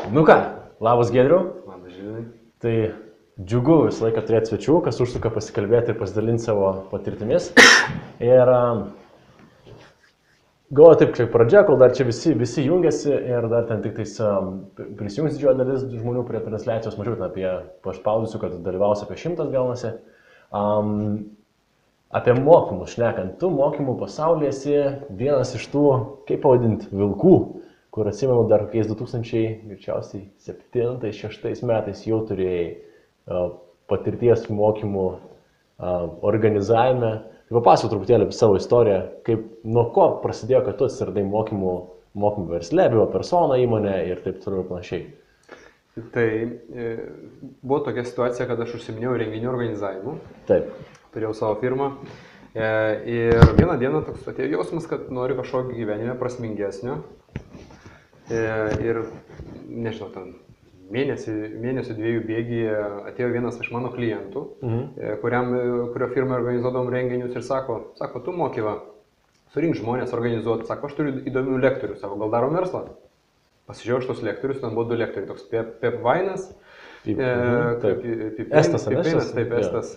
Nu ką, labas Giedriau. Labas Žilvinai. Tai džiugu visą laiką turėti svečių, kas užsuka pasikalbėti ir pasidalinti savo patirtimis. Ir galvoju taip, kaip pradžia, kol dar čia visi jungiasi ir dar ten tik tais prisijungs didžioji dalis žmonių prie transliacijos, mažiau ten apie paspaudusių, kad dalyvaus apie 100 gaunasi. Apie mokymus šnekant, tu mokymų pasaulyje esi vienas iš tų, kaip pavadinti, vilkų, kur atsimenu dar kokiais 2007-2006 metais jau turėjai patirties mokymų organizavime. Tai papasakok truputėlį apie savo istoriją, kaip nuo ko prasidėjo, kad tu atsiradai mokymų versle, buvo persona įmonė ir taip toliau ir panašiai. Tai buvo tokia situacija, kad aš užsiminėjau renginių organizavimu. Taip. Turėjau savo firmą ir vieną dieną toks atėjo jausmas, kad noriu kažkokio gyvenime prasmingesnio. Ir nežinau, ten mėnesio dviejų bėgyje atėjo vienas iš mano klientų, kurio firmai organizuodavom renginius ir sako, tu mokyva, surink žmonės organizuoti, sako, aš turiu įdomių lektorių, sako, gal darom verslą? Pasižiūrėjau šitos lektorius, ten buvo 2 lektoriai, toks Pep Vainas, Estas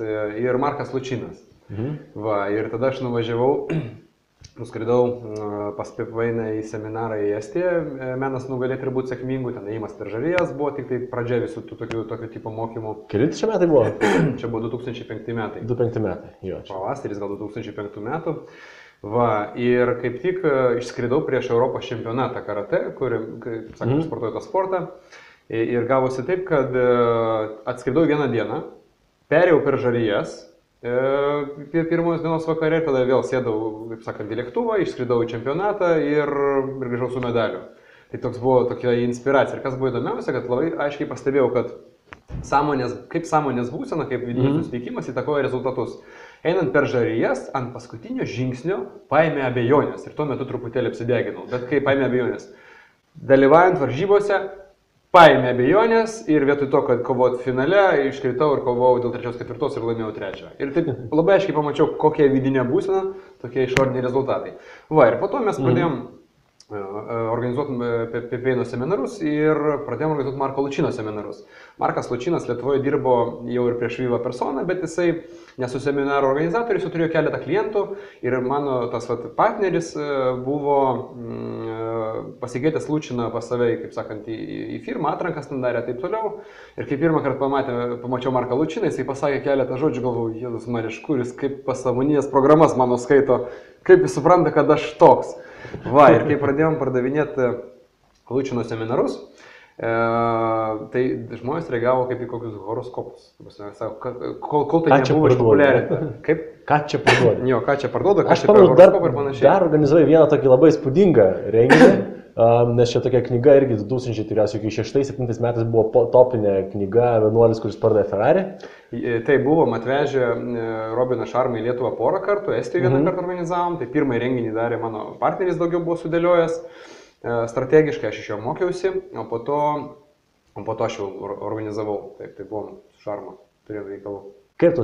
ir Markas Lučinas. Va, ir tada aš nuskridau pas Pep Vainą į seminarą į Estiją, menas nugalėti ir būti sėkmingu, ten ėjimas per žarijas buvo tik tai pradžia visų tokio tipo mokymų. Kelinti čia metai buvo? Čia buvo 2005 metai. 2005 metai, jo. Pavasaris gal 2005 metų. Va, ir kaip tik išskridau prieš Europos čempionatą karate, kur, kaip sakant, sportuoju tą sportą. Ir gavosi taip, kad atskridau vieną dieną, perėjau per žarijas, pirmos dienos vakarė, tada vėl sėdau, kaip sakant, į lėktuvą, išskridau į čempionatą ir grįžau su medaliu. Tai toks buvo tokia inspiracija. Ir kas buvo įdomiausia, kad labai aiškiai pastebėjau, kad sąmonės būsena, kaip vidinis nusiteikimas įtakoja rezultatus. Einant per žarijas, ant paskutinio žingsnio paėmė abejonės ir tuo metu truputėlį apsideginau. Bet kai paėmė abejonės? Dalyvaujant varžybose, paėmė abejonės ir vietoj to, kad kovot finale, iškritau ir kovojau dėl 3-4 ir laimėjau 3. Ir taip labai aiškiai pamačiau, kokia vidinė būsena, tokie išoriniai rezultatai. Va, ir po to mes pradėjom organizuoti Pep Vaino seminarus ir pradėjom organizuoti Marko Lučino seminarus. Markas Lučinas Lietuvoje dirbo jau ir prieš Viva Persona, bet jisai nesu seminaro organizatorius, jau turėjo keletą klientų ir mano tas partneris buvo pasikeitęs Lučiną pas save, kaip sakant, į firmą, atrankas ten darė, taip toliau. Ir kai pirmą kartą pamačiau Marką Lučiną, jisai pasakė keletą žodžių, galvoju, Jėzus Marija, kuris kaip pasąmoninės programas mano skaito, kaip jis supranta, kad aš toks. Va, ir kai pradėjom pardavinėti Lučino seminarus, tai žmonės reagavo kaip į kokius horoskopus. Kol tai nebuvo išpopuliarinta. Kaip? Ką čia parduoda? Jo, ką čia parduoda, aš pamenu, dar organizuoju vieną tokį labai spūdingą renginį, nes čia tokia knyga irgi 2006-2007 metais buvo topinė knyga Vienuolis, kuris pardavė Ferrari. Tai buvom atvežę Robiną Šarmą į Lietuvą porą kartų, Estijoje vieną kartą organizavom, tai pirmąjį renginį darė mano partneris, daugiau buvo sudėliojęs. Strategiškai aš iš jo mokiausi, o po to aš jau organizavau, taip, tai buvom su Šarma, turėjom reikalų. Kaip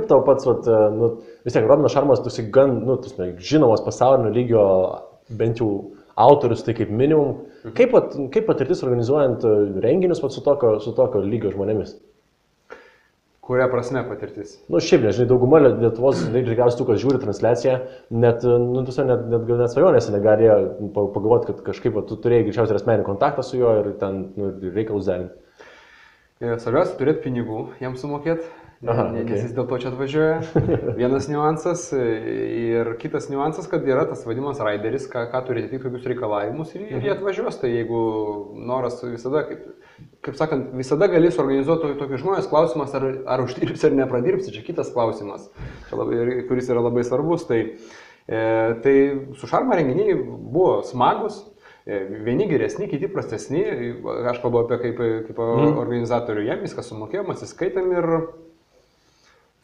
tau pats, vis tiek, Robinas Šarmas, tu esi gan, žinomas pasaulinio lygio, bent jau autorius, tai kaip minimum. Kaip patirtis organizuojant renginius su tokio lygio žmonėmis? Kuria prasme patirtis? Šiaip, nežinai, dauguma Lietuvos, tikriausiai tų, kas žiūri transliaciją, net svajonėse negalėjo pagalvoti, kad kažkaip tu turėjai greičiausiai asmeninį kontaktą su juo ir ten reikalus derinti. Svarbiausia turėti pinigų jam sumokėti, nes jis dėl to čia atvažiuoja. Vienas niuansas ir kitas niuansas, kad yra tas vadinamas raideris, ką turi atitikti kokius reikalavimus ir jie atvažiuos. Tai jeigu noras visada, kaip sakant, visada gali suorganizuoti tokius žmonės, klausimas, ar uždirbsi ar nepradirbsi, čia kitas klausimas, kuris yra labai svarbus. Tai su Šarma renginiai buvo smagus, vieni geresni, kiti prastesni, aš kalbu apie kaip organizatorių, jam viską sumokėjom, atsiskaitėm ir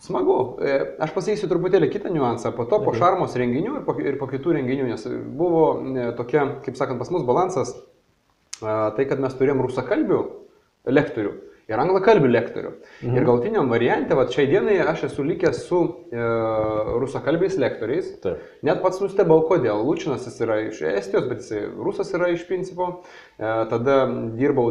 smagu. Aš pasakysiu truputėlį kitą niuansą, po to po Šarmos renginių ir po kitų renginių, nes buvo tokia, kaip sakant, pas mus balansas, tai kad mes turėjom rusakalbių lektorių ir anglakalbių lektorių. Ir galutiniam variante, šiai dienai aš esu likęs su rusakalbiais lektoriais. Net pats nustebau, kodėl. Lučinas jis yra iš Estijos, bet jis rusas yra iš principo. tada dirbau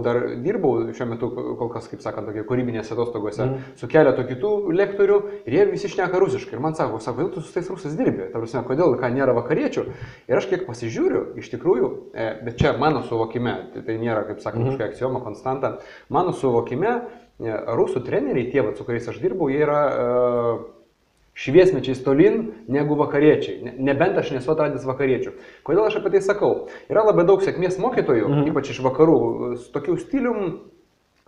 šiuo metu kol kas, kaip sakant, tokie kūrybinėse atostogose su keletu kitų lektorių ir jie visi šneka rusiškai. Ir man sako, kodėl tu su tais rusais dirbi? Ta prasme, kodėl, ką nėra vakariečių? Ir aš kiek pasižiūriu, iš tikrųjų, bet čia mano suvokime, tai nėra, kaip sakant, kažkokia aksioma, konstanta, mano suvokime, rusų treneriai, tie, su kuriais aš dirbau, jie yra šviesmečiais tolin negu vakariečiai. Nebent aš nesu atradęs vakariečių. Kodėl aš apie tai sakau? Yra labai daug sėkmės mokytojų, ypač iš vakarų, su tokiu stilium,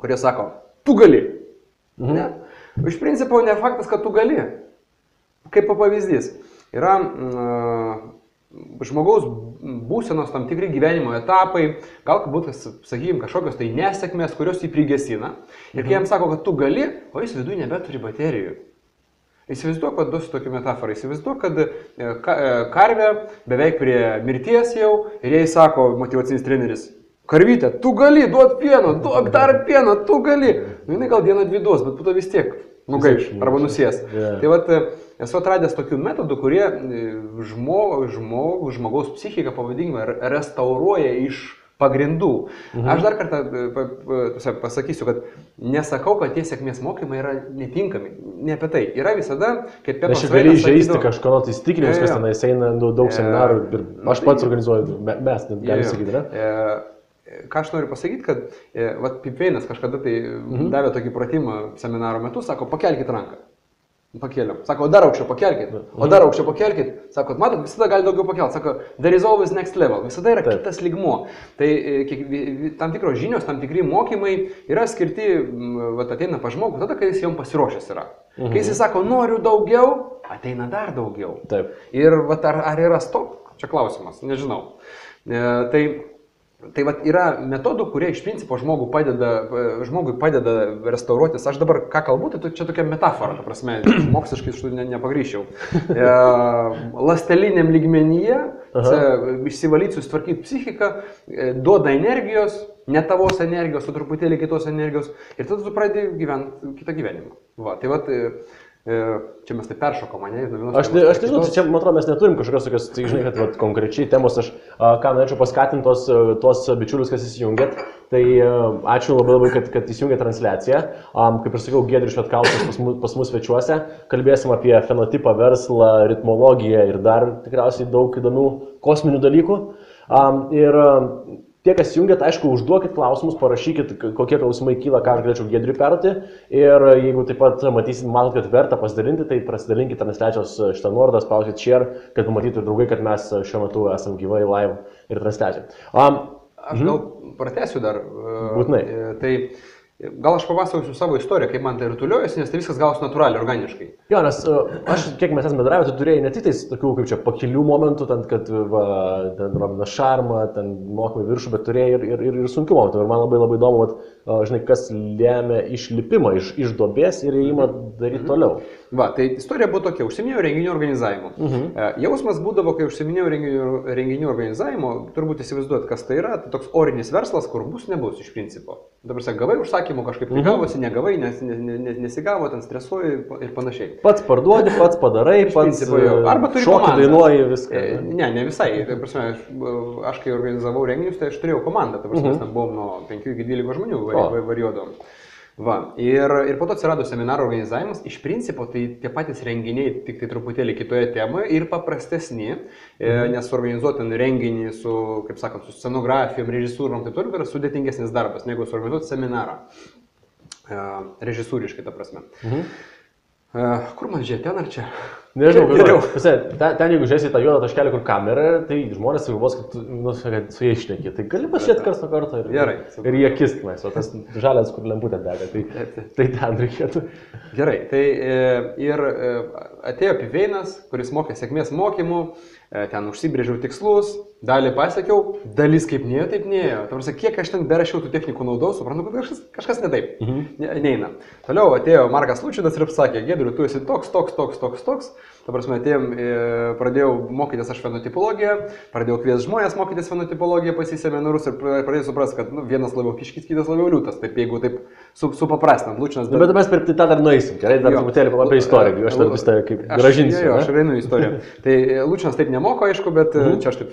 kurie sako, tu gali. Ne? Iš principo ne faktas, kad tu gali. Kaip pavyzdys. Yra žmogaus būsenos tam tikri gyvenimo etapai, galbūt, sakykime, kažkokios tai nesėkmės, kurios jį prigesina. Ir kai jam sako, kad tu gali, o jis viduje nebeturi baterijų. Įsivaizduok, kad duosiu tokį metaforą, įsivaizduok, kad karvė beveik prie mirties jau ir jai sako motyvacinis treneris, karvytė, tu gali, duot pieno, duok dar pieno, tu gali. Nu, jinai gal dieną dvi duos, bet po to vis tiek nugaiš arba nusės. Tai vat, esu atradęs tokių metodų, kurie žmogaus psichiką, pavadinkime, restauruoja iš pagrindų. Aš dar kartą pasakysiu, kad nesakau, kad tie sėkmės mokymai yra netinkami. Ne apie tai. Yra visada, kaip Pepas Vainas. Aš gali žaisti kažko įsitikinimus, kas tenais eina daug seminarų ir aš pats organizuoju, mes galim sakyti, ne? Ką aš noriu pasakyti, kad Pipveinas kažkada tai davė tokį pratimą seminaro metu, sako, pakelkit ranką. Pakėliam. Sako, dar aukščiau pakelkit. O dar aukščiau pakelkit. Sako, matot, visada gali daugiau pakelti. Sako, there is always next level. Visada yra kitas lygmuo. Tai tam tikros žinios, tam tikri mokymai yra skirti, ateina pa žmogų, tada, kai jis jom pasiruošęs yra. Kai jis sako, noriu daugiau, ateina dar daugiau. Taip. Ir ar yra stop? Čia klausimas, nežinau. Tai yra metodų, kurie iš principo žmogui padeda restauruotis. Aš dabar ką kalbu, tai čia tokia metafora, ta prasme, moksliškai iš tų nepagryščiau. Ląsteliniam lygmenyje išsivalyti, susitvarkyti psichiką, duoda energijos, ne tavos energijos, o truputėlį kitos energijos ir tada tu pradedi gyventi kitą gyvenimą. Va, tai čia mes tai peršokom, ne? Aš nežinau, čia, man atrodo, mes neturim kažkokios tokios, tai žinai, kad konkrečiai temos, aš ką norėčiau paskatinti tos bičiulius, kas įsijungėt, tai ačiū labai, kad įsijungėt transliaciją. Kaip ir sakiau, Giedrius Švetkauskas pas mus svečiuose, kalbėsim apie fenotipą, verslą, ritmologiją ir dar tikriausiai daug įdomių kosminių dalykų. Ir tie, kas jungiat, aišku, užduokit klausimus, parašykit, kokie klausimai kyla, ką aš galėčiau Giedriui perduoti. Ir jeigu taip pat matot, kad verta pasidalinti, tai pasidalinkit transliacijos šitą nuorodą, spauskit share, kad pamatytų draugai, kad mes šiuo metu esam gyvai live ir transliacijai. Aš gal pratęsiu dar. Būtinai. Tai gal aš papasakosiu savo istoriją, kaip man tai rutuliuojasi, nes tai viskas gausi natūraliai, organiškai. Jo, nes aš, kiek mes esame bendravę, tu turėjai ne tik tais tokių, kaip čia, pakilių momentų, ten, kad ten Robinas Šarma, ten mokymai viršų, bet turėjai ir sunkių momentų. Ir man labai įdomu, žinai, kas lėmė išlipimą iš duobės ir įėjimą daryti toliau. Va, tai istorija buvo tokia, užsiminėjau renginių organizavimu. Jausmas būdavo, kai užsiminėjau renginių organizavimu, turbūt įsivaizduot, kas tai yra, tai toks orinis verslas, kur bus, nebus iš principo. Dabar gavai užsakymų, kažkaip tai gavosi, negavai, nesigavo, ten stresuoji ir panašiai. Pats parduodi, pats padarai, pats šokį dainuoji viską. Ne visai. Aš kai organizavau renginius, tai aš turėjau komandą, mes ten buvom nuo 5 iki 12 žmonių varijuodavom. Va, ir po to atsirado seminaro organizavimas, iš principo tai tie patys renginiai, tik tai truputėlį kitoje temoje ir paprastesni, nes organizuoti renginį su, kaip sakant, su scenografijom, režisūrom, tai toliau yra sudėtingesnis darbas, negu suorganizuoti seminarą, režisūriškai ta prasme. Kur man žiūrėti, ten ar čia? Nežinau, ten jeigu žiūrėsi tą juodą taškelį, kur kamera, tai žmonės galvos, kad su jais šneki. Tai gali pažiūrėti karts nuo karto ir jie kiskimais, o tas žalias, kur lemputė dega, tai ten reikėtų. Gerai, tai ir atėjo Pipveinas, kuris mokė sėkmės mokymų, ten užsibrėžiau tikslus, dalį pasiekiau, dalis kaip nėjo, taip nėjo. Tarsi, kiek aš ten berašiau tų technikų naudau, suprantu, kad kažkas ne taip, neina. Toliau atėjo Markas Lučinas ir pasakė, Giedriu, tu esi toks. Ta prasme, atėjom, pradėjau mokytis aš fenotipologiją, pradėjau kviesti žmonės mokytis fenotipologiją pas į seminarus ir pradėjau suprasti, kad vienas labiau kiškis, kitas labiau liūtas. Taip, jeigu taip supaprastinant, Lučinas... Bet mes per tą dar nueisim, gerai, dar truputėlį apie istoriją, aš dar vis tai kaip gražinsiu. Aš einu į istoriją. Tai Lučinas taip nemoko, aišku, bet čia aš taip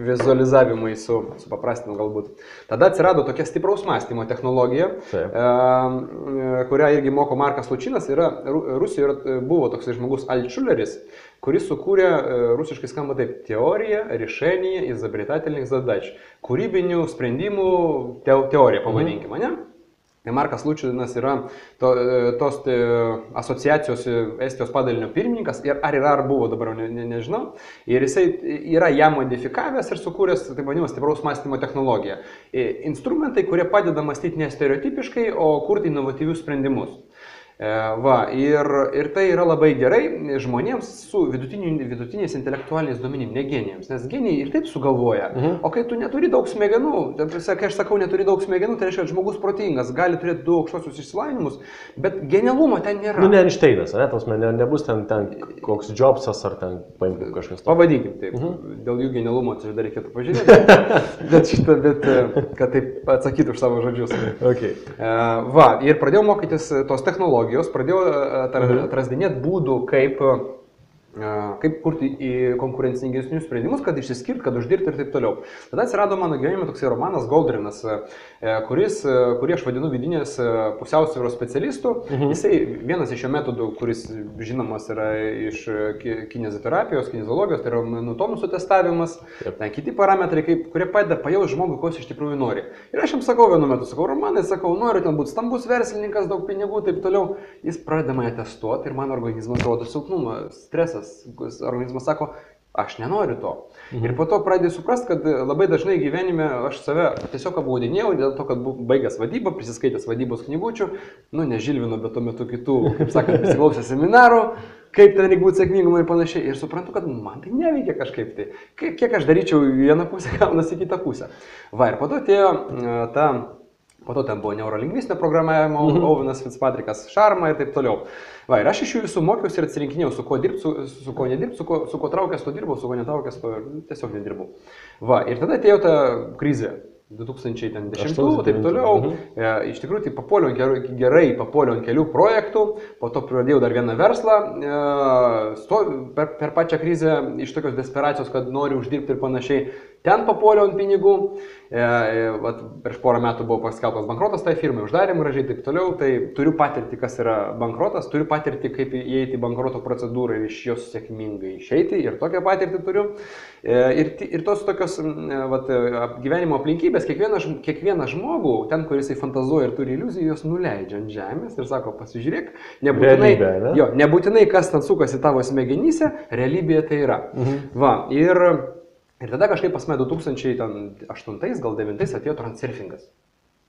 vizualizavimai supaprastinu galbūt. Tada atsirado tokia stipraus mąstymo technologija, kurią irgi moko Markas Lučinas. Rusijoje buvo toks žmogus Altšuleris, kuris sukūrė, rusiškai skamba taip, teorija, решение, изобретательных задач. Kūrybinių sprendimų teorija, pavadinkime, ne? Markas Lučinas yra tos asociacijos Estijos padalinio pirmininkas, ar buvo, dabar nežinau, ir jisai yra ją modifikavęs ir sukūręs, taip vadinamas, stipraus mąstymo technologiją. Instrumentai, kurie padeda mąstyti ne stereotipiškai, o kurti inovatyvius sprendimus. Ir tai yra labai gerai žmonėms su vidutiniais intelektualiniais duomenimis, ne genijams, nes genijai ir taip sugalvoja. O kai tu neturi daug smegenų, kai aš sakau neturi daug smegenų, tai reiškia, kad žmogus protingas, gali turėti du aukštosius išsilavinimus, bet genialumo ten nėra. Ne Einšteinas, nebus ten koks Jobsas ar ten kažkas. Pavadinkim taip, dėl jų genialumo čia dar reikėtų pažiūrėti, bet kad taip atsakytų už savo žodžius. Okay. Ir pradėjau mokytis tos technologijos. Pradėjau atrasdinėti būdų, kaip kurti konkurencingesnius sprendimus, kad išsiskirti, kad uždirbti ir taip toliau. Tada atsirado mano gyvenime toksai romanas Goldrinas, kurį aš vadinu vidinės pusiausvyros specialistų. Jisai vienas iš jo metodų, kuris žinomas yra iš kineziterapijos, kineziologijos, tai yra tonusų testavimas, kiti parametrai, kurie padeda pajausti žmogui, ko jis iš tikrųjų nori. Ir aš jam sakau vienu metu, Romanai, noriu ten būti stambus verslininkas, daug pinigų, taip toliau. Jis pradeda mane testuoti ir man organizmas rodo silpnumą, stresas. Organizmas sako, aš nenoriu to. Ir po to pradėjau suprasti, kad labai dažnai gyvenime aš save tiesiog apgaudinėjau dėl to, kad baigęs vadybą, prisiskaitęs vadybos knygučių, ne Žilvino, bet tuo metu kitų, kaip sakant, prisiklausęs seminarų, kaip ten reikia būti sėkmingum ir panašiai. Ir suprantu, kad man tai neveikia kažkaip tai. Kiek aš daryčiau vieną pusę, gaunasi kitą pusę. Ir po to atėjo po to ten buvo neurolingvistinė programavimo, Ovenas Fitzpatrickas, Šarma ir taip toliau. Ir aš iš jų visų mokiausi ir atsirinkinėjau, su kuo dirbti, su kuo nedirbti, su kuo traukęs, to dirbau, su kuo netraukęs, to tiesiog nedirbau. Ir tada atėjo ta krizė. 2010 ir taip toliau. Iš tikrųjų, tai papuoliau ant kelių projektų, po to pradėjau dar vieną verslą, per pačią krizę iš tokios desperacijos, kad noriu uždirbti ir panašiai. Ten papuoliau ant pinigų, prieš porą metų buvo paskelbtas bankrotas tai firmai, uždarėm gražiai taip toliau, tai turiu patirti, kas yra bankrotas, turiu patirti, kaip įeiti į bankroto procedūrą ir iš jos sėkmingai išeiti, ir tokią patirtį turiu. Ir tos tokios gyvenimo aplinkybės, kiekvieną žmogų, ten, kur jisai fantazuoja ir turi iliuzijų, jos nuleidžia ant žemės ir sako, pasižiūrėk, nebūtinai kas ten sukasi tavo smegenyse, realybėje tai yra. Ir tada kažkaip pas mane 2008, gal 2009 atėjo transurfingas.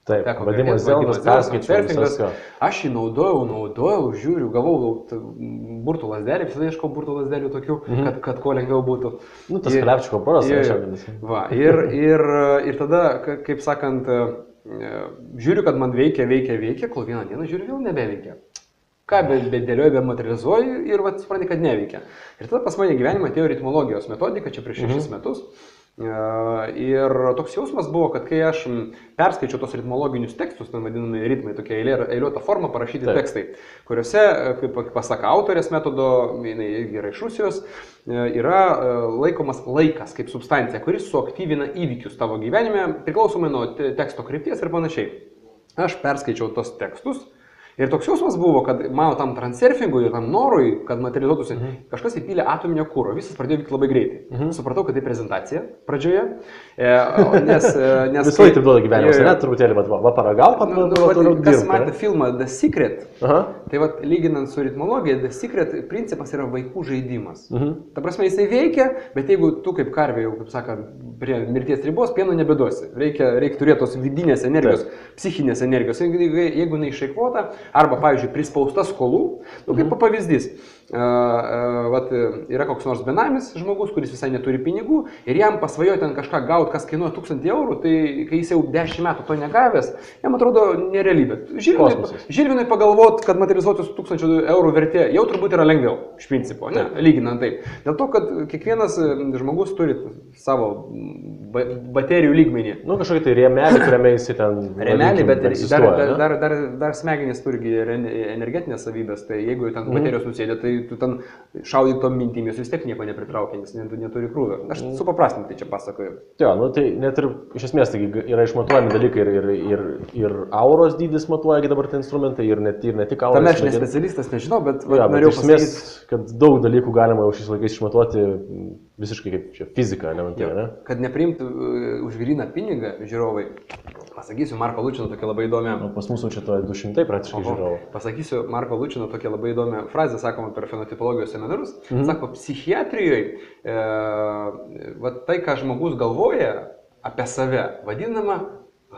Taip, vadimas Zeldas, perskaičiuotas. Aš jį naudojau, žiūriu, gavau burtų lasdelį, visada ieškau burtų lasdelių tokių, kad kuo lengviau būtų. Tas Klepčiko poras šiandien. Ir tada, kaip sakant, žiūriu, kad man veikia, kol vieną dieną žiūriu, vėl nebeveikia. Ką bedėlioju, bematerializuoju ir supranti, kad neveikia. Ir tada pas mane gyvenime atėjo ritmologijos metodika, čia prieš 6 metus. Ir toks jausmas buvo, kad kai aš perskaičiau tos ritmologinius tekstus, ten vadinami ritmai, tokia eiliuota forma parašyti tekstai, kuriuose, kaip pasaka autorės metodo, jinai yra iš Rusijos, yra laikomas laikas kaip substancija, kuris suaktyvina įvykius tavo gyvenime, priklausomai nuo teksto krypties ir panašiai. Aš perskaičiau tos tekstus. Ir toks jausmas buvo, kad mano tam transurfingui ir tam norui, kad materializuotųsi, kažkas įpylė atominio kuro, visas pradėjo vykti labai greitai. Supratau, kad tai prezentacija pradžioje, nes... Visą laiką taip duoda gyvenimas, ne? Truputėlį, paragauk, kas matė filmą The Secret, tai lyginant su ritmologija, The Secret principas yra vaikų žaidimas. Ta prasme, jisai veikia, bet jeigu tu kaip karvė, jau, kaip sakant, prie mirties ribos, pieno nebeduosi. Reikia turėti tos vidinės energijos, psichinės energijos. Jeigu neišeikvota, arba, pavyzdžiui, prispausta skolų, kaip pavyzdys, yra koks nors benamis žmogus, kuris visai neturi pinigų ir jam pasvajoja ten kažką gauti, kas kainuoja 1000 eurų, tai kai jis jau 10 metų to negavęs, jam atrodo nerealybė. Žilvinui pagalvot, kad materializuotis 1000 eurų vertė jau turbūt yra lengviau, iš principo, lyginant taip. Dėl to, kad kiekvienas žmogus turi savo baterijų lygmenį. Kažkokį tai rėmelį, kuriame jis ten... Rėmelį, bet dar smegenys turi energetinės savybės, tai jeigu ten baterijos nusėdė, tai tu ten šaudai tom mintimis, vis tiek nieko nepritraukia, nes neturi krūvio. Aš supaprastintai čia pasakoju. Jo, nu tai net ir iš esmės tai yra išmatuojami dalykai ir auros dydis matuoja dabar tie instrumentai ir ne tik auros. Tam aš ne specialistas, nežinau, bet norėjau pasakyti, kad daug dalykų galima jau šiais laikais išmatuoti visiškai kaip čia fizika, ne? Kad nepriimtų už gryną pinigą žiūrovai. Pasakysiu Marko Lučino tokia labai įdomi. Pas mūsų čia to 200 praktiškai žiūrovų. Pasakysiu Marko Lučino tokia labai įdomi frazė, sakoma per fenotipologijos seminarus. Sako, psichiatrijoje tai, ką žmogus galvoja apie save, vadinama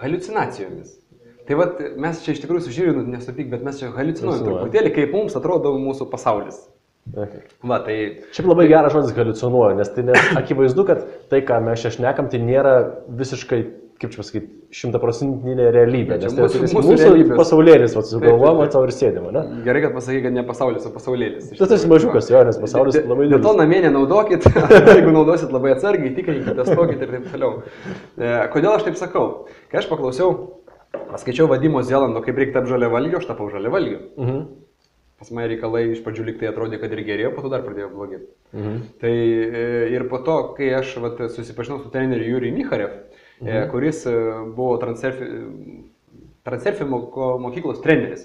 haliucinacijomis. Tai mes čia iš tikrųjų su Žilvinu nesupyk, bet mes čia haliucinuojam truputėlį, kaip mums atrodo mūsų pasaulis. Okay. Tai... Šiaip labai geras žodis haliucinuoja, nes tai akivaizdu, kad tai, ką mes čia šnekam, tai nėra visiškai, kaip čia pasakyti, 100% realybė. Nes tai mūsų pasaulėlis, sugalvojama, tau ir sėdima, ne? Gerai, kad pasakai, kad ne pasaulis, o pasaulėlis. Tas esi mažiukas, jo, nes pasaulis labai didelis. Dėl to namie nenaudokit, jeigu naudosit labai atsargiai, tikrinkite, testuokit ir taip toliau. Kodėl aš taip sakau? Kai aš paklausiau, paskaičiau Vadimo Zelando, kaip reikia tapti žaliavalgiu, aš tapau žaliavalgiu. Pas mane reikalai iš pradžių lyg tai atrodė, kad ir gerėjo, po to dar pradėjo blogėti. Tai ir po to, kai aš susipažinau su treneriu Jurijumi Micharev, kuris buvo Transurfing mokyklos treneris.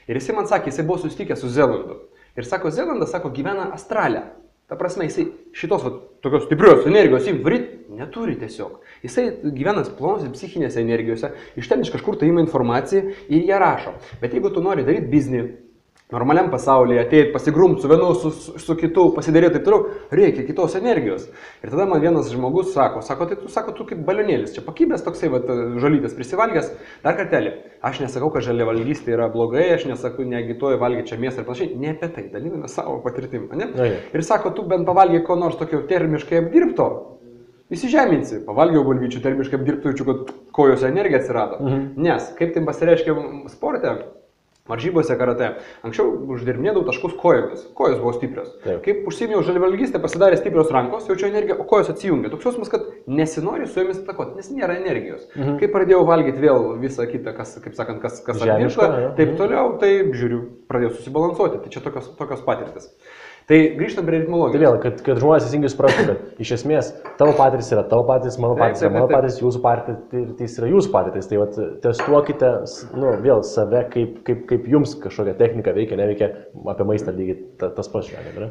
Ir jisai man sakė, jisai buvo susitikęs su Zelandu. Ir sako, Zelandas, gyvena astrale. Ta prasme, jisai šitos tokios stiprios energijos varyt neturi tiesiog. Jisai gyvena plonos psichinėse energijose, iš ten iš kažkur tai ima informaciją ir ją rašo. Bet jeigu tu nori daryti biznį, normaliam pasaulyje, ateit, pasigrumti su vienu, su kitu, pasidaryti taip toliau, reikia kitos energijos. Ir tada man vienas žmogus sako, tai tu kaip balionėlis, čia pakibęs toksai žolytės prisivalgęs, dar kartelį. Aš nesakau, kad žaliavalgystė yra blogai, aš nesakau, neagituoju valgyti čia mėsą ir panašiai, ne apie tai, daliname savo patirtim, ne? Ir sako, tu bent pavalgiai ko nors tokio termiškai apdirbto, įsižeminsi, pavalgiau bulvyčių termiškai apdirbtų, jaučiu, kad kojose energija atsirado. Nes, kaip tai pasireiškia sporte, varžybose karate, anksčiau uždirbinėdavau taškus kojomis, kojos buvo stiprios. Taip. Kaip užsiėmiau žaliavalgystę, pasidarė stiprios rankos, jaučiu energiją, o kojos atsijungia. Toks jausmas, kad nesinori su jomis atakoti, nes nėra energijos. Kai pradėjau valgyti vėl visą kitą, kas apdirbta, taip toliau, tai žiūriu, pradėjau susibalansuoti. Tai čia tokios patirtis. Tai grįžtam prie ritmologijos. Tai vėl, kad žmonės teisingai suprastų, kad iš esmės tavo patirtis yra tavo patirtis, mano patirtis yra mano patirtis, jūsų patirtis yra jūsų patirtis. Tai testuokite vėl save, kaip jums kažkokia technika veikia, neveikia, apie maistą lygiai tas pats šiandien.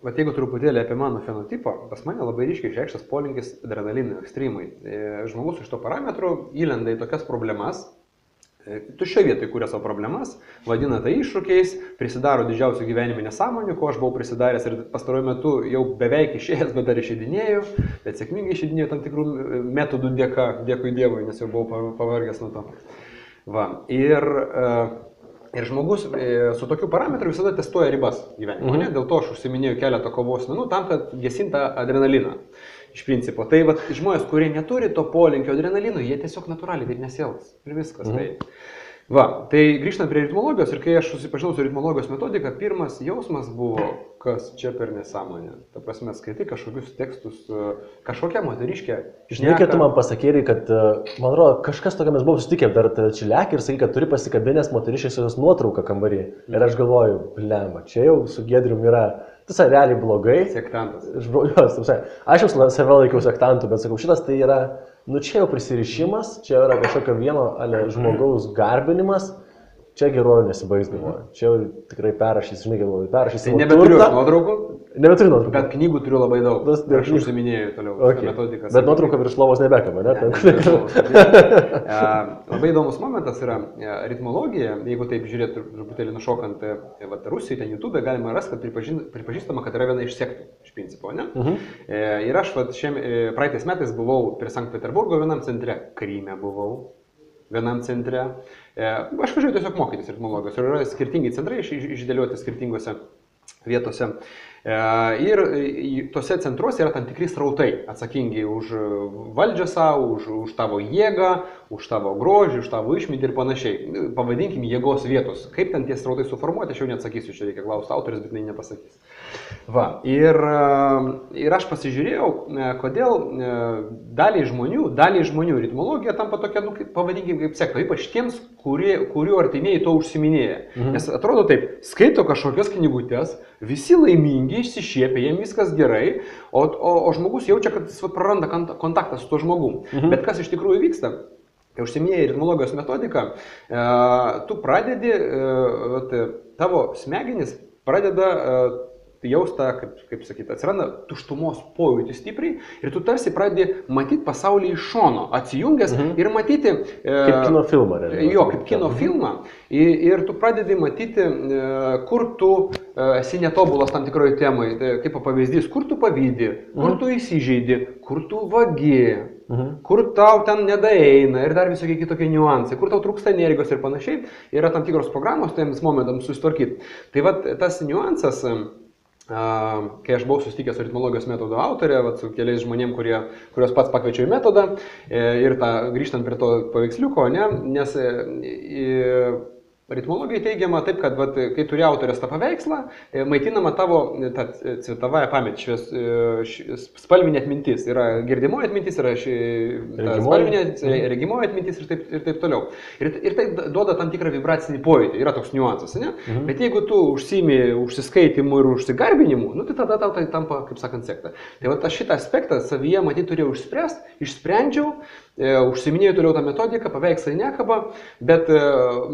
Bet jeigu truputėlį apie mano fenotipą, pas mane labai ryškiai išreikštas polinkis adrenalinui, ekstremui. Žmogus iš to parametrų įlenda į tokias problemas. Tuščioje vietoje kūrė savo problemas, vadina tai iššūkiais, prisidaro didžiausių gyvenime nesąmonių, ko aš buvau prisidaręs ir pastaruoju metu jau beveik išėjęs, bet dar išeidinėjau, bet sėkmingai išeidinėjau tam tikrų metodų dėka, dėkui Dievui, nes jau buvau pavargęs nuo to. Ir žmogus su tokiu parametru visada testuoja ribas gyvenime. Dėl to aš užsiminėjau keletą kovos menų tam, kad gesinta adrenaliną. Iš principo. Tai žmonės, kurie neturi to polinkio adrenalinų, jie tiesiog natūraliai taip nesielgs. Ir viskas. Tai grįžtant prie ritmologijos ir kai aš susipažinau su ritmologijos metodika, pirmas jausmas buvo, kas čia per nesąmonė. Ta prasme, skaitai kažkokius tekstus, kažkokią moteriškę. Žinai, kad tu man pasakėjai, kad, man atrodo, kažkas tokia mes buvome susitikę dar Čiliakį ir sakai, kad turi pasikabinęs moteriškės jos nuotrauką kambarį. Ir aš galvoju, blema, čia jau su Giedrium yra. Tas realiai blogai. Sektantas. Aš jau save laikiau sektantų, bet sakau, šitas tai yra, čia jau prisirišimas, čia yra kažkokio vieno žmogaus garbinimas, čia geruoju nesibaigs galvoju. Čia jau tikrai perrašys, žinai, galvoju, perrašys. Tai nebeturiu nuotraukų? Nebeturiu nuotraukų. Bet knygų turiu labai daug. Aš užsiminėjau toliau metodiką. Bet nuotrauką virš lovos nebekama, ne? Labai įdomus momentas yra ritmologija, jeigu taip žiūrėti truputėlį nušokant Rusijoje, ten YouTube galima rasti, kad pripažįstama, kad yra viena iš sektų, iš principo, ne? Ir aš praeitais metais buvau prie Sankt Peterburgo vienam centre, Kryme buvau vienam centre. Aš važiuoju tiesiog mokytis ritmologijos ir yra skirtingi centrai išdėlioti skirtingose vietose. Ir tose centruose yra tam tikri srautai atsakingi už valdžią savo, už tavo jėgą, už tavo grožį, už tavo išmintį ir panašiai. Pavadinkim jėgos vietos. Kaip ten tie srautai suformuoti, aš jau neatsakysiu, čia reikia klausti autorius, bet jinai nepasakys. Va, ir aš pasižiūrėjau, kodėl daliai žmonių ritmologija tampa tokia, nu, pavadinkim, kaip sekta, ypač tiems, kurių artimieji to užsiminėja. Nes atrodo taip, skaito kažkokias knygutės, visi laimingi, išsišiepia, jiems viskas gerai, o žmogus jaučia, kad jis praranda kontaktą su tuo žmogum. Bet kas iš tikrųjų vyksta? Kai užsiminėjai ritmologijos metodiką, tu pradedi, tavo smegenys pradeda jaustą, kaip sakyti, atsiranda tuštumos pojūtį stipriai ir tu tarsi pradedi matyti pasaulį iš šono, atsijungęs ir matyti... Kaip kino filmą, realiai. Jo, kaip kino filmą. Ir tu pradedi matyti, kur tu esi netobulas tam tikroje temai, kaip pavyzdys, kur tu pavydi, kur tu įsižeidi, kur tu vagi, kur tau ten nedaeina ir dar visokie kitokie niuansai, kur tau trūksta energijos ir panašiai, yra tam tikros programos tiems momentams susitvarkyti. Tai va, tas niuansas... Kai aš buvau susitikęs su ritmologijos metodo autorė, su keliais žmonėm, kuriuos pats pakviečiau į metodą ir grįžtant prie to paveiksliuko, nes ritmologija teigiama taip, kad kai turi autorės tą paveikslą, maitinama tavo cvetavąją pametį, spalvinė atmintis. Yra girdimoji atmintis, yra spalvinė regimoji atmintis ir taip toliau. Ir tai duoda tam tikrą vibracinį pojūtį, yra toks niuansas, ne? Bet jeigu tu užsiimi užsiskaitimu ir užsigarbinimu, nu, tai tada tau tai tampa, kaip sakant, sekta. Tai va, šitą aspektą savyje, matyt, turėjau išsprendžiau, užsiminėjau toliau tą metodiką, paveikslai nekaba, bet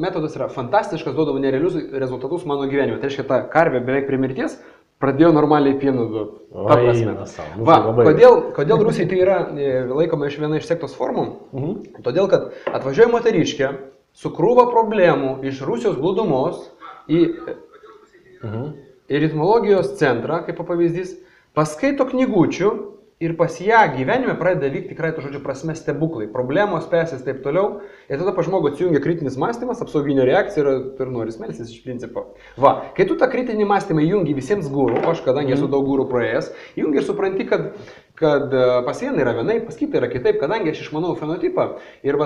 metodas yra fantastiškas, duodavo nerealius rezultatus mano gyvenime. Tai reiškia, ta karvė beveik prie mirties pradėjo normaliai pieną duoti. Ta prasme. Va, kodėl Rusijai tai yra laikoma viena iš sektos formų? Todėl, kad atvažiuoja moteriškė su krūva problemų iš Rusijos glūdumos į ritmologijos centrą, kaip pavyzdys, paskaito knygučių, ir pas ją gyvenime pradeda vykti tikrai to žodžio prasme stebuklai, problemos spėsis taip toliau, ir tada pa žmogų atsijungia kritinis mąstymas, apsauginė reakcija ir nori smelsis iš principo. Va, kai tu tą kritinį mąstymą įjungi visiems gūrų, aš kadangi esu daug gūrų praėjęs, įjungi ir supranti, kad pas vieną yra vienai, pas kitą yra kitaip, kadangi aš išmanau fenotipą ir,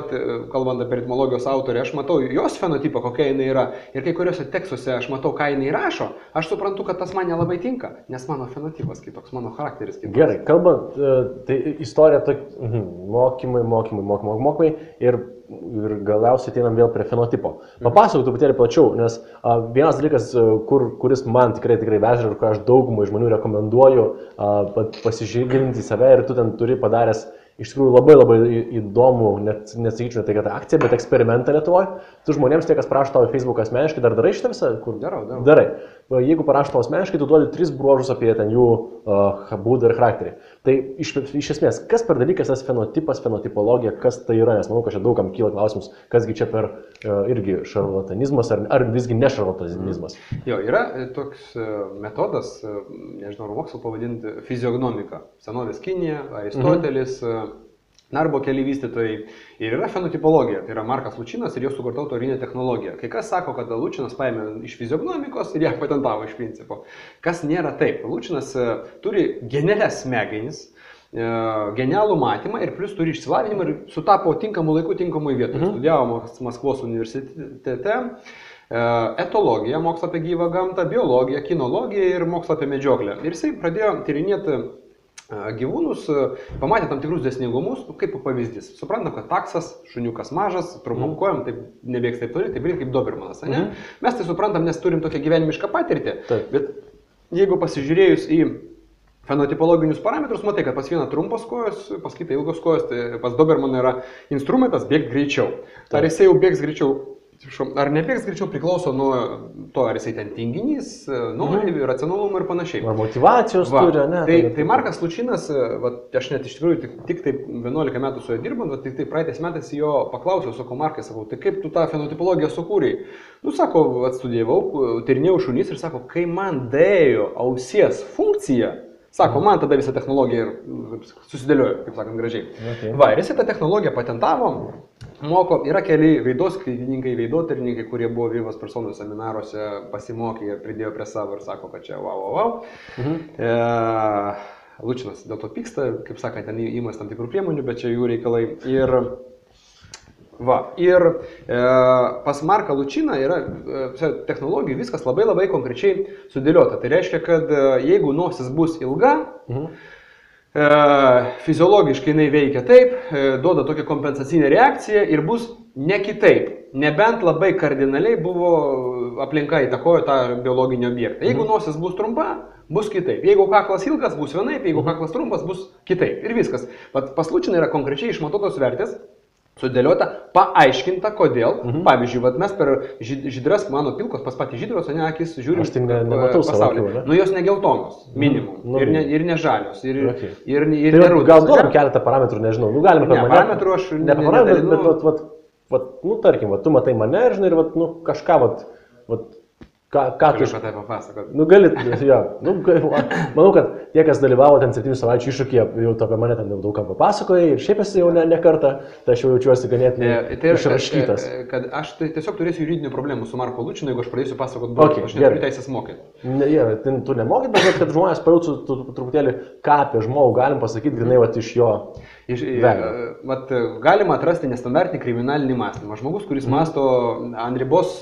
kalbant apie ritmologijos autorę, aš matau jos fenotipą, kokia jinai yra, ir kai kuriuose tekstuose aš matau, ką jinai rašo, aš suprantu, kad tas man nelabai tinka, nes mano fenotipas kitoks, mano charakteris kitoks. Gerai, kalbant, tai istorija mokymai ir galiausiai ateinam vėl prie fenotipo. Papasakok truputėlį plačiau, nes vienas dalykas, kuris man tikrai veža ir kur aš daugumai žmonių rekomenduoju pasižiūrėti į save ir tu ten turi padaręs iš tikrųjų labai įdomų, net nesakyčiau, tai kad akcija, bet eksperimentą Lietuvoje. Tu žmonėms, tie, kas prašo tavo Facebooką asmeniškai, dar darai šitą visą? Darau. Darai. Jeigu parašo tavo asmeniškai, tu duodi 3 bruožus apie ten jų būdą ir charakterį. Tai iš esmės, kas per dalykas tas fenotipas, fenotipologija, kas tai yra, nes manau, kad čia daugam kyla klausimus, kasgi čia per irgi šarlatanizmas ar visgi ne šarlatanizmas. Jo, yra toks metodas, nežinau, mokslo pavadinti fiziognomika. Senovės Kinija, Aristotelis, Narbo keli vystytojai. Ir yra fenotipologija, tai yra Markas Lučinas ir jo sukurta autorinė technologija. Kai kas sako, kad Lučinas paėmė iš fiziognomikos ir ją patentavo iš principo. Kas nėra taip. Lučinas turi genialias smegenis, genialų matymą ir plus turi išsilavinimą ir sutapo tinkamų laikų tinkamų vietų. Studijavo Maskvos universitete, etologiją, mokslą apie gyvą gamtą, biologiją, kinologiją ir mokslą apie medžioklę. Ir jisai pradėjo tyrinėti gyvūnus, pamatė tam tikrus dėsningumus, kaip pavyzdys. Suprantam, kad taksas, šuniukas mažas, trumpom kojom, taip nebėgs taip toli, taip kaip Dobermanas, ne? Mes tai suprantam, nes turim tokią gyvenimišką patirtį, bet jeigu pasižiūrėjus į fenotipologinius parametrus, matai, kad pas vieną trumpos kojos, pas kitą ilgos kojos, tai pas Dobermaną yra instrumentas bėgti greičiau. Ar jisai jau bėgs greičiau? Ar nebėgs greičiau priklauso nuo to, ar jisai ten tinginys, nori, racionalumą ir panašiai. Ar motivacijos turi, ne? Tai Markas Lučinas, aš net iš tikrųjų tik taip 11 metų su juo dirbant, tik praeitais metais jo paklausiau, sakau, Markai, sakau, tai kaip tu tą fenotipologiją sukūrei? Nu, sako, atstudijavau, tyrinėjau šunys ir sako, kai man dėjo ausies funkcija, sako, man tada visą technologiją ir susidėliojo, kaip sakant, gražiai. Va, ir jisai tą technologiją patentavo. moko, yra keli veidoskaidininkai, veidotyrininkai, kurie buvo Vivos personų seminaruose, pasimokė ir pridėjo prie savo ir sako, kad čia wow. Lučinas dėl to pyksta, kaip sakant, ten įmas tam tikrų priemonių, bet čia jų reikalai. Ir pas Marką Lučiną yra technologijų viskas labai konkrečiai sudėliota. Tai reiškia, kad jeigu nosis bus ilga, fiziologiškai jinai veikia taip, duoda tokią kompensacinę reakciją ir bus ne kitaip. Nebent labai kardinaliai buvo aplinka įtakojo tą biologinį objektą. Jeigu nosis bus trumpa, bus kitaip. Jeigu kaklas ilgas, bus vienaip, jeigu kaklas trumpas, bus kitaip. Ir viskas. Pas Lučiną yra konkrečiai išmatuotos vertės, sudėliota, paaiškinta, kodėl. Pavyzdžiui, mes per žydras, mano pilkos, pas patį žydros, o ne akis žiūrim pasaulį. Nu, jos ne geltonos, minimum. Ir ne žalios. Ir nerūdos. Gal duodam keletą parametrų, nežinau. Nu, galime per parametrų aš nedalinu. Nu, tarkim, tu matai mane ir, žinai, ir kažką, ką tu iš tai papasakot? Nu, galit, jo. Nu, manau, kad tie, kas dalyvavo ten 7 savaičių iššūkyje, jau apie mane ten daug ką papasakoja ir šiaip esi jau ne kartą, tai aš jau jaučiuosi ganėtinai išraškytas. Kad aš tiesiog turėsiu juridinių problemų su Marku Lučinu, jeigu aš pradėsiu pasakoti daug, aš neturiu teisės mokyti. Tu nemokyt, bet kad žmonės pajautų truputėlį, ką apie žmogų galim pasakyti, grinai iš jo. Galima atrasti nestandartinį kriminalinį mąstymą. Žmogus, kuris mąsto ant ribos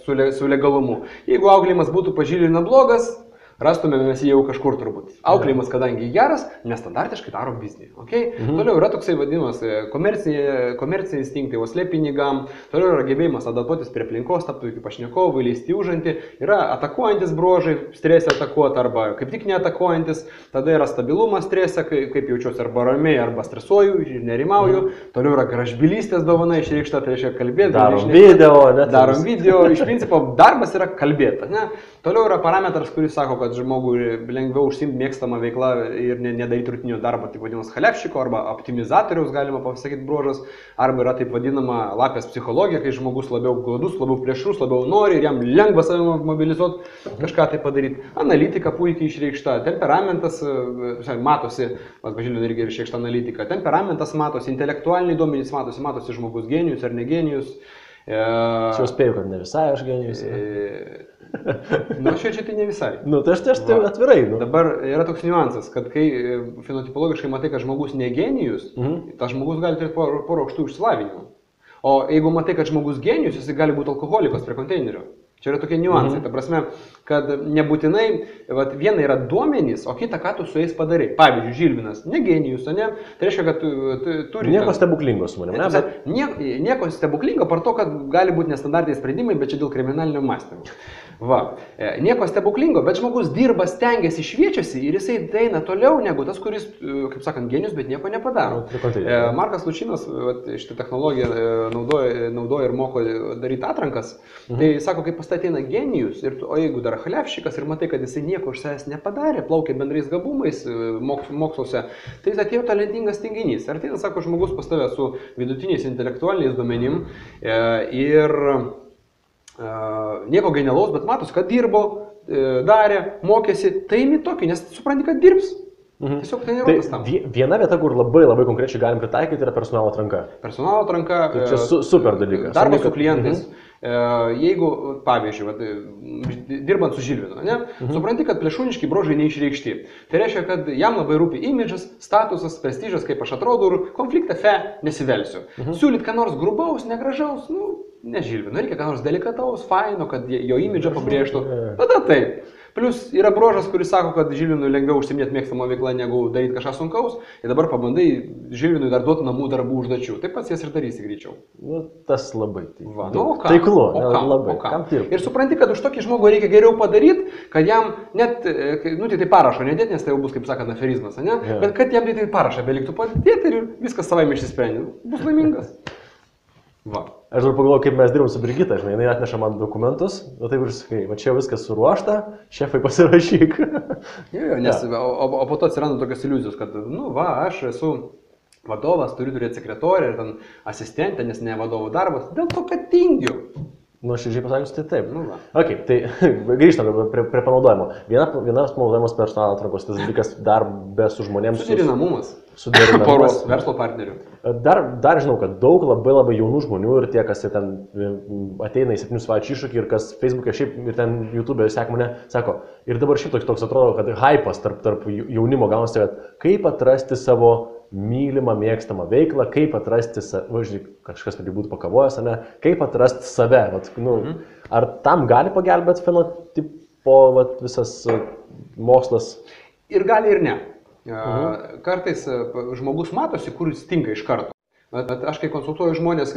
su legalumu. Jeigu auklėjimas būtų pažylina blogas, rastumėme mes jį jau kažkur turbūt. Auklėjimas, kadangi geras, nestandartiškai daro biznį. Okay? Toliau yra toksai vadinamas komerciniai instinktai, uoslė pinigam. Toliau yra gebėjimas adaptuotis prie aplinkos, tapti iki pašnekovų, įleisti užantį. Yra atakuojantis bruožai, stresė atakuoti arba kaip tik neatakuojantis. Tada yra stabilumas stresė, kaip jaučiuosi arba ramiai, arba stresuoju ir nerimauju. Toliau yra gražbylystės dovana išreikšta, tai reiškia kalbėti. Darom video. Iš principo darbas yra kalbėti. Ne? Toliau yra parametras, kuris sako, kad žmogui lengviau užsiimti mėgstamą veiklą ir nedaryti rutinio darbo, taip vadinamas chalevšiko arba optimizatoriaus, galima pasakyti, bruožas, arba yra taip vadinama lapės psichologija, kai žmogus labiau gladus, labiau plėšrus, labiau nori ir jam lengva save mobilizuoti, kažką tai padaryti. Analitika puikiai išreikšta, temperamentas matosi, pažiūrėjau, irgi išreikšta analitika, temperamentas matosi, intelektualiniai duomenys matosi žmogus genijus ar negenijus. Čia spėjau, kad ne visai aš genijus. Nu, čia tai ne visai. Nu, tai aš tai atvirai. Nu. Dabar yra toks niuansas, kad kai fenotipologiškai matai, kad žmogus ne genijus, tas žmogus gali turėti porą aukštų išsilavinimų. O jeigu matai, kad žmogus genijus, jis gali būti alkoholikas prie konteinerio. Čia yra tokie niuansai. Ta prasme, kad nebūtinai viena yra duomenys, o kita, ką tu su jais padarai. Pavyzdžiui, Žilvinas, ne genijus, ne? Tai reiškia, kad tu turi... Nieko stebuklingo su manim, ne? Nieko stebuklingo, par to, kad gali būti nestandartiniai sprendimai, bet čia dėl kriminalinio mąstymo. Nieko stebuklingo, bet žmogus dirba, stengiasi, šviečiasi ir jisai eina toliau negu tas, kuris, kaip sakant, genijus, bet nieko nepadaro. Markas Lučinas šitą technologiją naudoja ir moko daryti atrankas. Tai sako, kai pas tai ateina genijus, o jeigu dar chalevšikas ir matai, kad jisai nieko iš savęs nepadarė, plaukia bendrais gabumais moksluose, tai jis atėjo talentingas tinginys. Ir tai, sako, žmogus pas tave su vidutiniais intelektualiniais duomenim ir nieko genialaus, bet matos, kad dirbo, darė, mokėsi, tai imi tokį, nes supranti, kad dirbs. Tiesiog tai nerodas tam. Viena vieta, kur labai konkrečiai galim pritaikyti, yra personalo atranka. Personalo atranka. Tai čia super dalykas. Darbas su klientais. Jeigu, pavyzdžiui, dirbant su Žilvinu, supranti, kad plėšūniški bruožai neišreikšti. Tai reiškia, kad jam labai rūpi imidžas, statusas, prestižas, kaip aš atrodau ir konfliktą nesivelsiu. Siūlyt ką nors grubaus, negražaus, ne Žilvinu, reikia ką nors delikataus, faino, kad jo imidžą pabrėžtų. Tada taip. Plus yra bruožas, kuris sako, kad Žilvinui lengviau užsiminėti mėgstamą veiklą, negu daryti kažką sunkaus. Ir dabar pabandai Žilvinui dar duoti namų darbų užduočių. Taip pats jas ir darysi greičiau. Nu, tas labai taiklu. Labai. Ir supranti, kad už tokį žmogų reikia geriau padaryti, kad jam net, tai parašo nedėti, nes tai jau bus, kaip sakant, aferizmas, ne? Bet kad jam tai parašą beliktų padėti ir viskas savaime išsisprendė. Bus laimingas. Aš dar pagalvoju, kaip mes dirbam su Brigita, žinai, jinai atneša man dokumentus, taip ir sakai, čia viskas suruošta, šefai pasirašyk. O po to atsiranda tokios iliuzijos, kad, aš esu vadovas, turiu turėti sekretorę ir ten asistentę, nes ne vadovų darbas, dėl to, kad tingiu. Nu, širdžiai pasakius, tai taip. Nu, va. Ok, tai grįžtam prie panaudojimo. Vienas panaudojimas personalo atrankos, tas dalykas dar be su žmonėms. Suderinamumas. Suderinamumas. Poros verslo partnerių. Dar žinau, kad daug labai jaunų žmonių ir tie, kas ten ateina į 7 savaičių iššūkį ir kas Facebook'e šiaip ir ten YouTube'e seka mane, sako, ir dabar šiaip toks atrodo, kad hypas tarp jaunimo gaunasi, kad kaip atrasti savo mylimą, mėgstamą veiklą, kaip atrasti, kažkas tai būtų pakavojęs, ne, kaip atrasti save. Vat, nu, ar tam gali pagelbėti fenotipo visas mokslas? Ir gali, ir ne. Kartais žmogus matosi, kur jis tinka iš karto. Bet aš kai konsultuoju žmonės,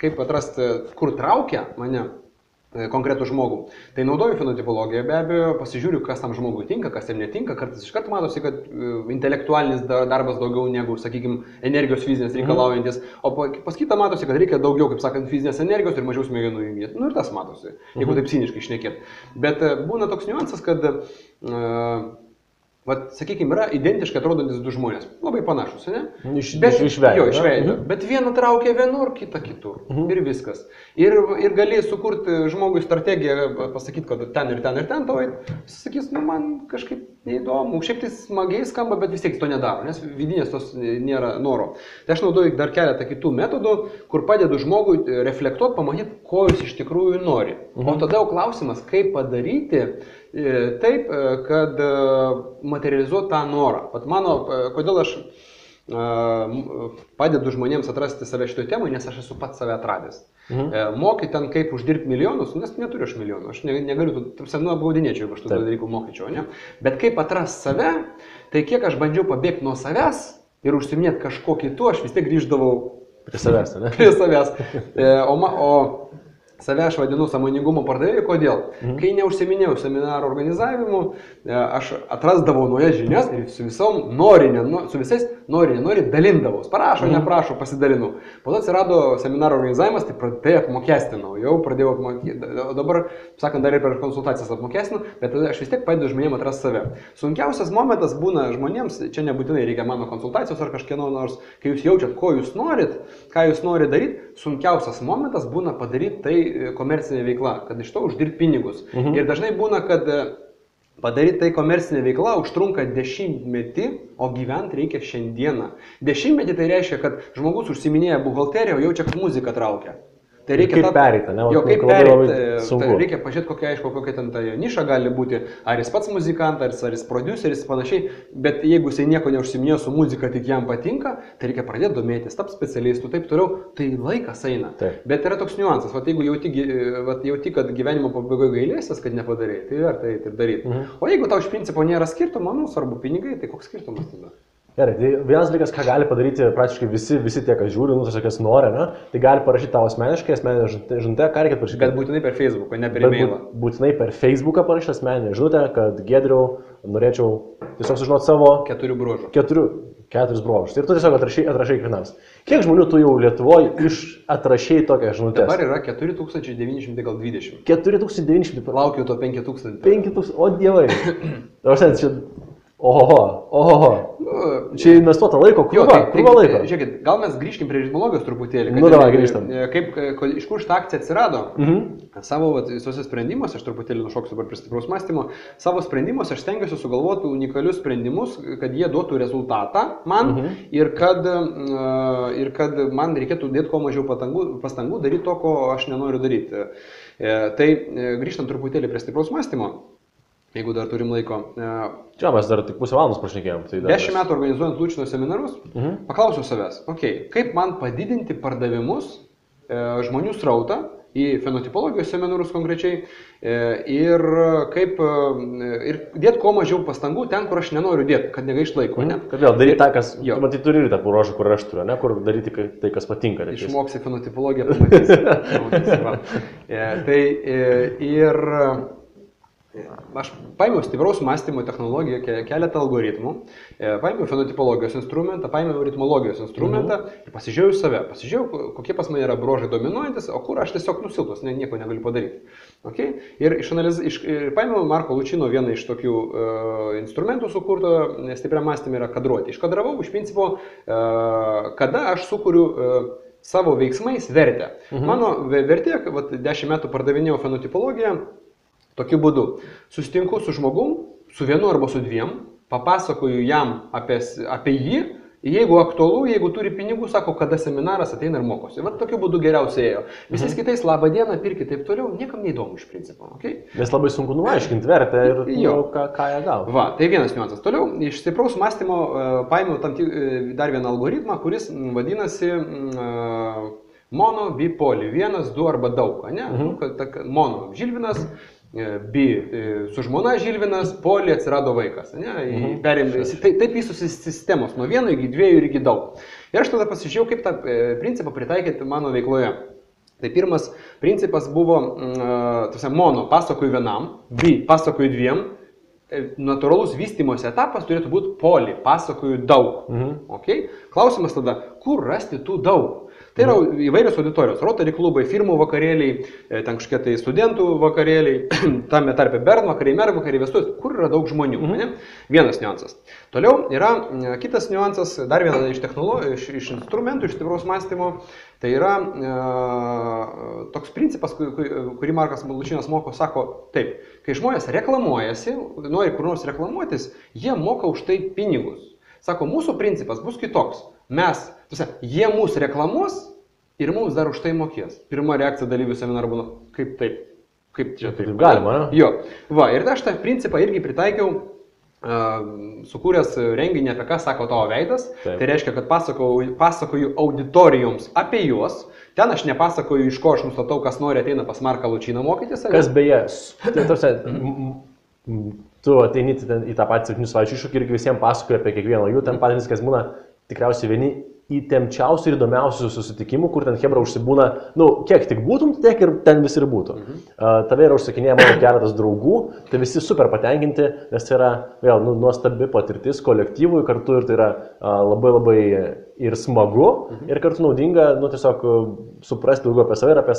kaip atrasti, kur traukia mane konkretų žmogų, tai naudoju fenotipologiją, be abejo, pasižiūriu, kas tam žmogui tinka, kas jam netinka, kartais iš karto matosi, kad intelektualinis darbas daugiau negu, sakykime, energijos fizinės reikalaujantis, o pas kitą matosi, kad reikia daugiau, kaip sakant, fizinės energijos ir mažiau smegenų jungti. Nu ir tas matosi, jeigu taip ciniškai šnekėt. Bet būna toks niuansas, kad sakykime, yra identiškai atrodantis du žmonės, labai panašus, ne? Iš veido. Jo, iš veido. Bet vieną traukia vienur, kitą kitur. Ir viskas. Ir gali sukurti žmogui strategiją, pasakyti, kad ten ir ten ir ten tau, jis sakys, nu man kažkaip neįdomu, šiaip tai smagiai skamba, bet vis tiek to nedaro, nes vidinės tos nėra noro. Tai aš naudoju dar keletą kitų metodų, kur padedu žmogui reflektuoti, pamatyti, ko jis iš tikrųjų nori. O tada jau klausimas, kaip padaryti taip, kad materializuoti tą norą. Pat mano, kodėl aš padedu žmonėms atrasti save šitoje temoje, nes aš esu pats save atradęs. Mokai ten kaip uždirbti milijonus, nes neturiu aš milijonų, aš negaliu, apgaudinėčiau, jeigu aš tų dalykų mokyčiau, ne? Bet kaip atrasti save, tai kiek aš bandžiau pabėgti nuo savęs ir užsiminėti kažko kitu, aš vis tiek grįždavau prie savęs, ne? Prie savęs. O save aš vadinu sąmoningumo pardavėju, kodėl? Kai neužsiminėjau seminaro organizavimu, aš atrasdavau naujas žinias ir su visom su visais nori dalindavau. Parašo, neprašo, pasidalinu. Po to atsirado seminaro organizavimas, tai apmokestinau, jau pradėjau apmokestinti. O dabar, sakant, dar ir per konsultacijas apmokestinu, bet aš vis tiek padedu žmonėms atrasti save. Sunkiausias momentas būna žmonėms, čia nebūtinai reikia mano konsultacijos ar kažkieno nors, kai jūs jaučiat, ko jūs norit, ką jūs norite daryti, sunkiausias momentas būna padaryti tai komercinė veikla, kad iš to uždirbti pinigus. Ir dažnai būna, kad padaryti tai komercinė veikla užtrunka 10 metį, o gyventi reikia šiandieną. 10 metį tai reiškia, kad žmogus užsiminėja buhalteriją, o jaučia, kad muzika traukia. Tai reikia kaip perėti, ne? Jo, kaip perėti. Tai reikia pažiūrėti, kokia ten ta niša gali būti. Ar jis pats muzikantas, ar jis produceris, panašiai. Bet jeigu jisai nieko neužsiminėjo su muzika, tik jam patinka, tai reikia pradėti domėtis, tapti specialistų, taip toliau. Tai laikas eina. Taip. Bet yra toks niuansas. Jeigu jauti, kad gyvenimo pabaigoje gailėsies, kad nepadarėjai, tai verta eiti ir daryti. O jeigu tau iš principo nėra skirtumo, svarbu pinigai, tai koks skirtumas tada? Gerai, tai vienas dalykas, ką gali padaryti praktiškai visi tie, kas žiūri, tiesiog kas nori, ne? Tai gali parašyti tavo asmeniškai, asmeninę žinutę, ką reikia parašyti. Bet būtinai per Facebooką, ne per e-mailą. Būtinai per Facebooką parašyti asmeninę žinutę, kad Giedriau, norėčiau tiesiog sužinoti savo 4 bruožų. 4 bruožus. Ir tu tiesiog atrašai kiekvienams. Kiek žmonių tu jau Lietuvoje atrašai tokią žinutę? Dabar yra 4920. 4900. Laukiu to 5000. 5000, o dievai. Oho. Čia investuota laiko, krūva laiko. Žiūrėkit, gal mes grįžkim prie ritmologijos truputėlį. Nu, davai, grįžtam. Iš kur šitą akciją atsirado? Savo visuose sprendimuose, aš truputėlį nušoksiu dabar prie stipraus mąstymo, savo sprendimuose aš stengiuosi sugalvoti unikalius sprendimus, kad jie duotų rezultatą man ir kad man reikėtų dėti kuo mažiau pastangų daryti to, ko aš nenoriu daryti. Tai grįžtam truputėlį prie stipraus mąstymo. Jeigu dar turim laiko. Čia mes dar tik pusę valandos pašnekėjom. 10 metų organizuojant Lučino seminarus, paklausiau savęs, kaip man padidinti pardavimus, žmonių srautą į fenotipologijos seminarus konkrečiai ir dėti kuo mažiau pastangų ten, kur aš nenoriu dėti, kad negaišt laiko. Kad vėl daryti tą, kas, matai, turi ir tą bruožą, kur aš turiu, kur daryti tai, kas patinka. Išmoksi fenotipologiją, pamatysi. Aš paėmiau stipraus mąstymo technologiją, keletą algoritmų, paėmiau fenotipologijos instrumentą, paėmiau ritmologijos instrumentą ir pasižiūrėjau save. Pasižiūrėjau, kokie pas mane yra bruožai dominuojantis, o kur aš tiesiog nusilpnas, nieko negaliu padaryti. Ir paėmiau Marko Lučino vieną iš tokių instrumentų sukurto stipriam mąstymui yra kadruoti. Iškadravau iš principo, kada aš sukuriu savo veiksmais vertę. Mano vertė, 10 metų pardavinėjau fenotipologiją, tokiu būdu. Susitinku su žmogum, su vienu arba su dviem, papasakoju jam apie jį, jeigu aktualu, jeigu turi pinigų, sako, kada seminaras ateina ir mokosi. Vat tokiu būdu geriausiai ėjo. Visais kitais labą dieną, pirkit taip toliau, niekam neįdomu iš principo. Okay? Nes labai sunku nuaiškinti vertę ir ką jie gavo. Va, tai vienas niuansas. Toliau, iš stipraus mąstymo paėmiau dar vieną algoritmą, kuris vadinasi mono, bipoli. Vienas, du arba daug. Ne? Mono Žilvinas, bi su žmona Žilvinas, poli atsirado vaikas. Taip vystosi sistemos, nuo 1 iki 2 ir iki daug. Ir aš tada pasižiūrėjau, kaip tą principą pritaikyti mano veikloje. Tai pirmas principas buvo mono, pasakoju vienam, bi, pasakoju dviem. Natūralus vystymosi etapas turėtų būti poli, pasakoju daug. Okay? Klausimas tada, kur rasti tų daug? Tai yra įvairios auditorijos, Rotary klubai, firmų vakarėliai, ten kažkokie tai studentų vakarėliai, tame tarpe Bern vakariai, Mer vakariai, vestuvės, kur yra daug žmonių. Vienas niuansas. Toliau yra kitas niuansas, dar vienas iš technologijų, iš instrumentų, iš stipraus mąstymo. Tai yra toks principas, kurį Markas Malučinas moko, sako taip, kai žmonės reklamuojasi, nori kur nors reklamuotis, jie moka už tai pinigus. Sako, mūsų principas bus kitoks. Jie mūsų reklamuos ir mums dar už tai mokės. Pirma reakcija dalyvių seminarų būna, kaip taip, kaip čia taip. Galima, ne? Jo. Va, ir aš tą principą irgi pritaikiau, sukūręs renginį, apie ką sako tavo veidas. Taip. Tai reiškia, kad pasakoju auditorijoms apie juos. Ten aš nepasakoju, iš ko aš nustatau, kas nori ateina pas Marką Lučiną mokytis. Kas beje, tu ateini į tą patį 7 savaičių iššūkį ir visiems pasakoji apie kiekvieną jų, ten patys, kas būna tikriausiai vieni įtempčiausių ir įdomiausių susitikimų, kur ten hebra užsibūna, kiek tik būtum, tiek ir ten visi ir būtų. Tave yra užsakinėję mano keletas draugų, tai visi super patenkinti, nes tai yra vėl nuostabi patirtis kolektyvui kartu ir tai yra labai labai ir smagu, ir kartu naudinga, tiesiog suprasti daugiau apie save ir apie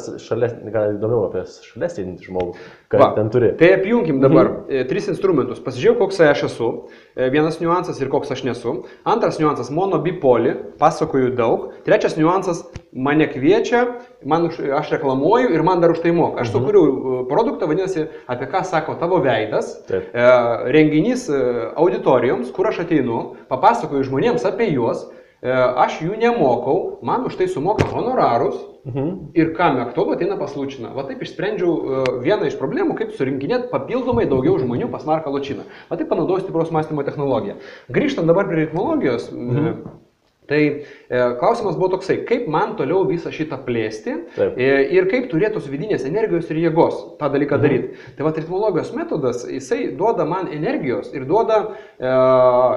įdomiau apie šalia sėdintį žmogų, ką ten turi. Tai apjunkim dabar 3 instrumentus. Pasižiūrėjau, koks aš esu. Vienas niuansas ir koks aš nesu. Antras niuansas - mono, bipoli, pasakoju daug. Trečias niuansas - mane kviečia, aš reklamuoju ir man dar už tai moka. Aš sukūriau produktą, vadinasi, apie ką sako tavo veidas. Taip. Renginys auditorijoms, kur aš ateinu, papasakoju žmonėms apie juos. Aš jų nemokau, man už tai sumoka honorarus ir kam aktualu ateina pas Lučiną. Va taip išsprendžiau vieną iš problemų, kaip surinkinėti papildomai daugiau žmonių pas Marką Lučiną. Va taip panaudojau stipraus mąstymo technologiją. Grįžtant dabar prie ritmologijos, tai klausimas buvo toksai, kaip man toliau visą šitą plėsti ir kaip turėtos vidinės energijos ir jėgos tą dalyką daryti. Tai va, ritmologijos metodas, jisai duoda man energijos ir duoda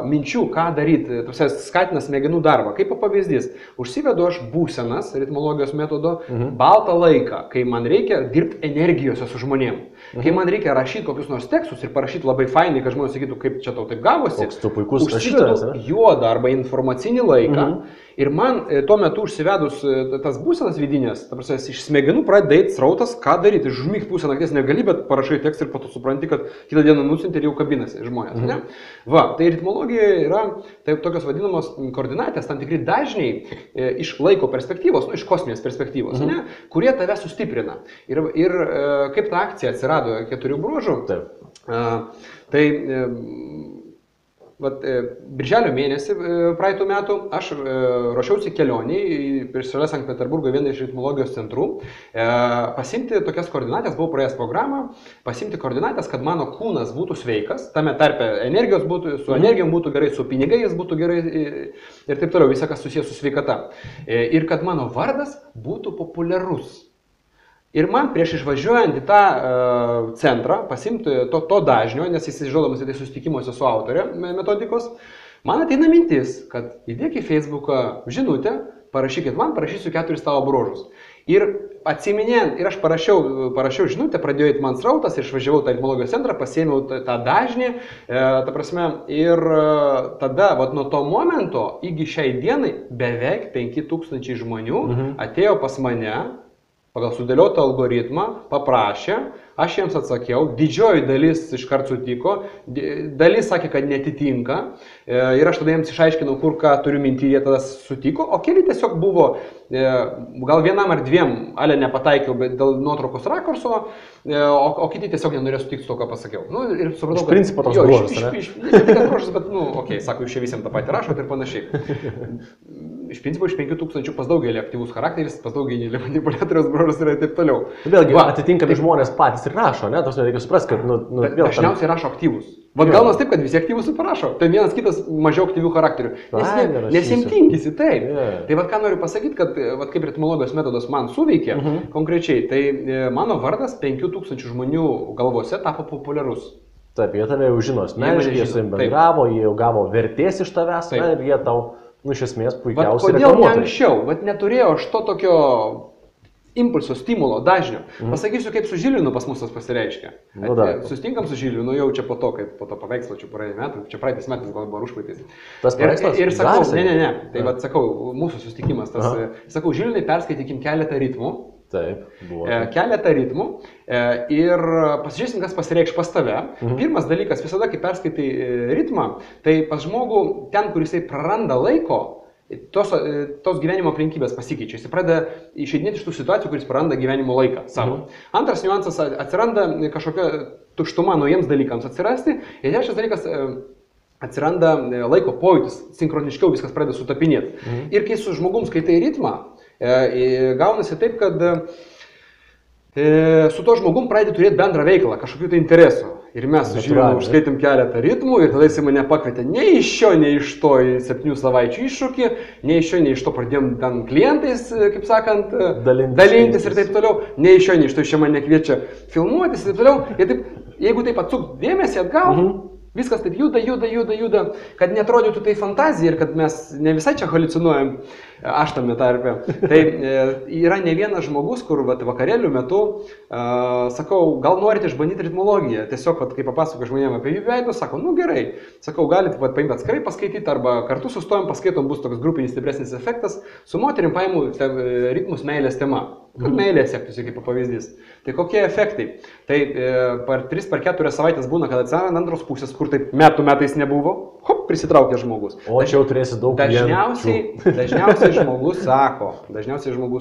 minčių, ką daryti, skatina smegenų darbą. Kaip pavyzdys, užsivedu aš būsenas ritmologijos metodo baltą laiką, kai man reikia dirbti energijose su žmonėm. Kai man reikia rašyti kokius nors tekstus ir parašyti labai fainai, kad žmonės sakytų, kaip čia tau taip gavosi, užsivedu juodą arba informacinį laiką. Ir man tuo metu užsivedus tas būsenas vidinės, iš smegenų pradeda eiti srautas, ką daryti. Žmygti pusę nakties negali, bet parašai tekstą ir po to supranti, kad kitą dieną nusinti ir jau kabinasi žmonės. Ne? Va, tai ritmologija yra tokios vadinamos koordinatės, tam tikri dažniai iš laiko perspektyvos, iš kosminės perspektyvos, kurie tave sustiprina. Ir kaip ta akcija atsirado 4 bruožų, tai birželio mėnesį praeitų metų aš ruošiausi kelionį prieš šalia Sankt Peterburgo vieną iš ritmologijos centrų, pasimti tokias koordinatės, buvau praėjęs programą, pasimti koordinatės, kad mano kūnas būtų sveikas, tame tarpe energijos būtų, su energijom būtų gerai, su pinigais būtų gerai ir taip toliau, visą kas susijęs su sveikata. Ir kad mano vardas būtų populiarus. Ir man prieš išvažiuojant į tą centrą, pasimti to dažnio, nes jis žodamas į tai susitikimuose su autorė metodikos, man ateina mintis, kad įdėk į Facebooką žinutę, parašykit man, parašysiu 4 tavo bruožus. Ir atsiminėjant, ir aš parašiau žinutę, pradėjo eiti man srautas ir išvažiavau tą ritmologijos centrą, pasiėmiau tą dažnį, ir tada, nuo to momento, iki šiai dienai, beveik 5000 žmonių atėjo pas mane pagal sudėliotą algoritmą, paprašė, aš jiems atsakiau, didžioji dalis iškart sutiko, dalis sakė, kad netitinka ir aš tada jiems išaiškinau, kur ką turiu minti, jie tada sutiko, o keli tiesiog buvo, gal vienam ar dviem, ale nepataikiau, bet dėl nuotraukos rakurso, o kiti tiesiog nenorėjo sutikti su to, ką pasakiau. Nu, ir supratau, iš principo toks bruožas, ne? Ne tik bruožas, bet, okei, sako, jūs čia visiems tą patį rašot ir panašiai. Iš principo, iš 5000 pas daugelį aktyvus charakteris, pas daugelį manipuliatoriaus bruožas yra ir taip toliau. Vėlgi, atitinkami žmonės patys ir rašo, ne? Tos reikia suprasti, kad, dažniausiai rašo aktyvus. Vat gaunas taip, kad visi aktyvus ir parašo. Tai vienas kitas mažiau aktyvių charakterių. Nes jiems tingisi, taip. Tai vat ką noriu pasakyti, kad vat kaip ritmologijos metodas man suveikė konkrečiai, tai mano vardas 5000 žmonių galvose tapo populiarus. Taip, jie tave jau žino asmeniškai, jie su jais bendravo, jie jau gavo vertės iš tavęs, na, ir jie tau, iš esmės, puikiausiai reklamuotojai. Kodėl ne anksčiau? Vat neturėjau aš to tokio impulso, stimulo, dažnio. Pasakysiu, kaip su Žilvinu pas mus tas pasireiškia. Sustinkam su Žilvinu jau čia po to, kaip po to paveikslo, čia praeitį metų, čia praeitais metais gal buvo užpraeitais. Tas paveikslas? Ir sakau, ne. Tai vat sakau, mūsų sustikimas, tas, sakau, Žilvinai, perskaitykim keletą ritmų. Taip, buvo. Keletą ritmų ir pasižiūrėsim, kas pasireikš pas tave. Pirmas dalykas, visada, kai perskaitai ritmą, tai pas žmogų ten, kur jisai praranda laiko, tos gyvenimo aplinkybės pasikeičia. Jis pradeda išeidinėti iš tų situacijų, kuris praranda gyvenimo laiką savo. Antras niuansas, atsiranda kažkokia tuštuma naujiems dalykams atsirasti. Ir trečias dalykas, atsiranda laiko pojūtis, sinchroniškiau viskas pradeda sutapinėti. Ir kai su žmogum skaitai ritmą, gaunasi taip, kad su to žmogum pradedi turėti bendrą veiklą, kažkokių tai interesų. Ir mes su Žilvinu užskaitėm keletą ritmų ir tada jis mane pakvietė nei iš šio, nei iš to į 7 savaičių iššūkį, nei iš šio, nei iš to pradėjom ten klientais, kaip sakant, dalintis ir taip toliau, nei iš šio, nei iš to iš čia mane kviečia filmuotis ir taip toliau. Ir taip, jeigu taip atsukt dėmesį atgal, viskas taip juda, kad netrodytų tai fantazija ir kad mes ne visai čia haliucinuojam, aš tame tarpe. Tai yra ne vienas žmogus, kur vakarėlių metu, sakau, gal norite išbandyti ritmologiją, tiesiog, kai papasako žmonėm apie jų veidus, sako, nu gerai, sakau, galite paimti atskirai paskaityti arba kartu sustojom, paskaitom, bus toks grupinis stipresnis efektas, su moterim paimu ritmus meilės tema. Kad meilė sektųsi kaip pavyzdys. Tai kokie efektai? Tai per 3-4 savaitės būna, kad atsiranda antros pusės, kur taip metais nebuvo, hop, prisitraukia žmogus. O čia jau turėsi daug dažniausiai žmogus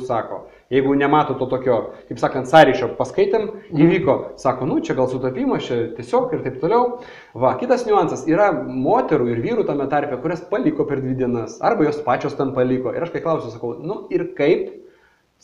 sako, jeigu nemato to tokio, kaip sakant, sąryšio, paskaitėm, įvyko, sako, nu čia gal sutapimas, čia tiesiog ir taip toliau. Va, kitas niuansas, yra moterų ir vyrų tame tarpe, kurias paliko per 2 dienas, arba jos pačios ten paliko. Ir aš kai klausiu, sakau, nu ir kaip?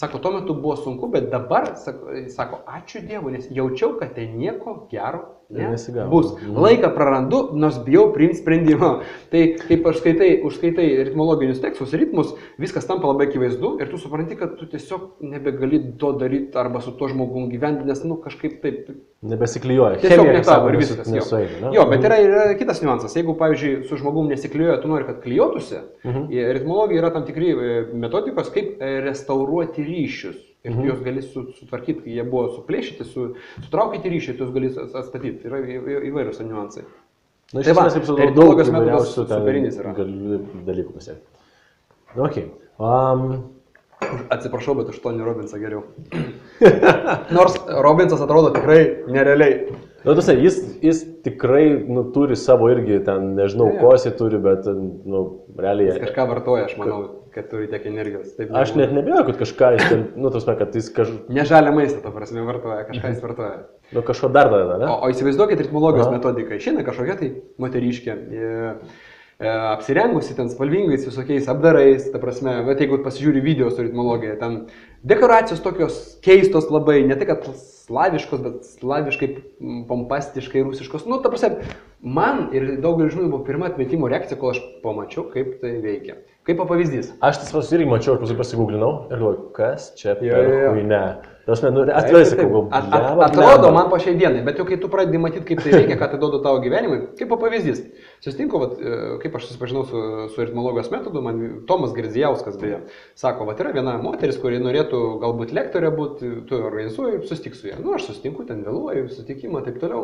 Sako, tuo metu buvo sunku, bet dabar, sako, ačiū Dievui, nes jaučiau, kad tai nieko gero bus. Laiką prarandu, nors bijau priimti sprendimą. Tai kaip užskaitai ritmologinius tekstus, ritmus, viskas tampa labai akivaizdu ir tu supranti, kad tu tiesiog nebegali to daryti arba su tuo žmogum gyventi, nes, nu, kažkaip taip... Nebesiklijuoja. Tiesiog netavo ir viskas. Jo, bet yra kitas niuansas. Jeigu, pavyzdžiui, su žmogum nesiklijuoja, tu nori, kad klijuotųsi, ritmologija yra tam tikri metodikos, kaip restauruoti ryšius. Ir tu juos gali sutvarkyti, kai jie buvo suplėšyti, sutraukyti ryšį, tu juos gali atstatyti. Yra įvairius niuansai. Na, iš esmės, kaip ritmologijos metodas superinis yra. Galiu dalykų pasiekti. Ok. Atsiprašau, bet už Tony Robbinsą geriau. Nors Robbinsas atrodo tikrai nerealiai. Nu, tu sakai, jis tikrai turi savo irgi, ten nežinau, ko jis turi, bet, realiai... Jis kažką vartoja, aš manau, kad turi tiek energijos. Taip, aš net nebijau, kad kažką jis ten, kad jis kažką... Ne žalia maistą, to prasme, vartoja, kažką jis vartoja. Nu, kažko dar tada, ne? O įsivaizduokit ritmologijos metodiką. Išeina kažkokia tai moteriškė, apsirengusi ten spalvingais visokiais apdarais, ta prasme, bet jeigu pasižiūri video su ritmologija, ten dekoracijos tokios keistos labai, ne tik kad slaviškos, bet slaviškai, pompastiškai, rusiškos. Nu, ta prasme, man ir daugelį žmonių buvo pirma atmetimo reakcija, kol aš pamačiau, kaip tai veikia. Kaip pavyzdys. Aš tas irgi mačiau, aš pasigūglinau ir galvoju, kas čia per huinę. Atrodo man po šiai dienai, bet jau kai tu pradedi matyti, kaip tai veikia, ką tai duoda tavo gyvenimui, kaip pavyzdys. Susitinku, kaip aš susipažinau su ritmologijos metodu, man Tomas Girdzijauskas beje, sako, yra viena moteris, kuri norėtų galbūt lektorė būti, tu organizuoji, susitik su ją. Nu, aš susitinku, ten vėluoju, susitikimą, taip toliau,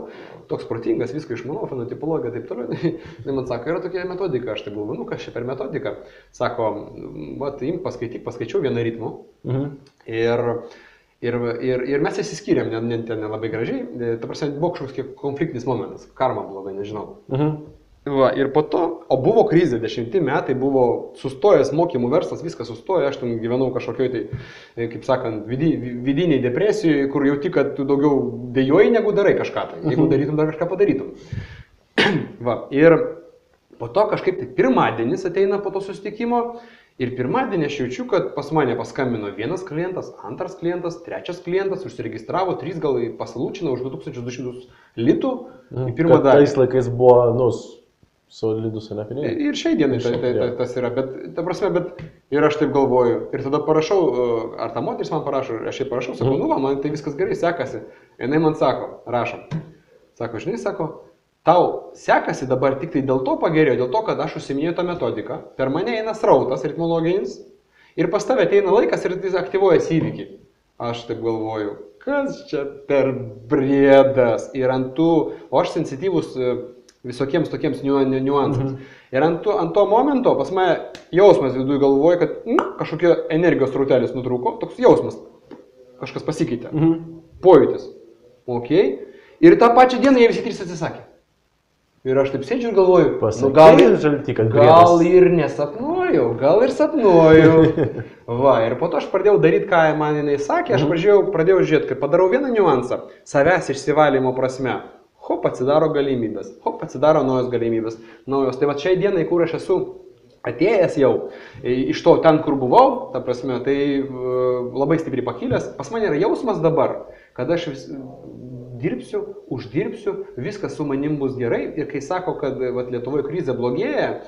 toks protingas, viską išmanau, fenotipologija, taip toliau. Tai man sako, yra tokia metodika, aš tai galvoju, nu, kas čia per metodiką. Sako, imk paskaityk, paskaičiau vieną ritmų. Ir Ir mes įsiskyrėm, ten nelabai gražiai, ta prasme, buvo kažkoks konfliktinis momentas, karma blogai, nežinau. Va, ir po to, o buvo krizė, 10 metai, buvo sustojęs mokymų verslas, viskas sustojo, aš ten gyvenau kažkokioj tai, kaip sakant, vidiniai depresijoje, kur jauti, kad tu daugiau dėjoji, negu darai kažką tai, jeigu darytum, dar kažką padarytum. Va, ir po to kažkaip tai pirmadienis ateina po to susitikimo. Ir pirmadienį aš jaučiu, kad pas mane paskambino vienas klientas, antras klientas, trečias klientas, užsiregistravo, 3 gal pasalūčino už 2200 litų į pirmą dalį. Tais laikais buvo, solidus, ne pinigai. Ir šiai dienai tas yra, bet, ta prasme, ir aš taip galvoju. Ir tada parašau, ar ta moteris man parašo, aš jai parašau, sakau, man tai viskas gerai sekasi. Jinai man sako, rašom. Sako, žinai, sako, tau sekasi dabar tik tai dėl to pagerėjo, dėl to, kad aš užsiminėjau tą metodiką, per mane eina srautas ritmologinis ir pas tave ateina laikas ir jis aktyvuojas įvykį. Aš taip galvoju, kas čia per briedas ir o aš sensityvus visokiems tokiems niuansams. Ir ant to momento pas mane jausmas viduje galvoja, kad kažkokia energijos rautelis nutrūko, toks jausmas, kažkas pasikeitė, pojūtis. Okay. Ir tą pačią dieną jie visi 3 atsisakė. Ir aš taip sėdžiu ir galvoju, gal ir nesapnuoju, gal ir sapnuoju. Va, ir po to aš pradėjau daryti, ką man jinai sakė, aš pradėjau žiūrėti, kad padarau vieną niuansą, savęs išsivalymo prasme. Hop, atsidaro galimybės, atsidaro naujos galimybės, naujos. Tai va šiai dienai, kur aš esu atėjęs jau, iš to ten, kur buvau, ta prasme, tai labai stipriai pakilęs, pas mane yra jausmas dabar, kad aš dirbsiu, uždirbsiu, viskas su manim bus gerai ir kai sako, kad Lietuvoje krizė blogėja,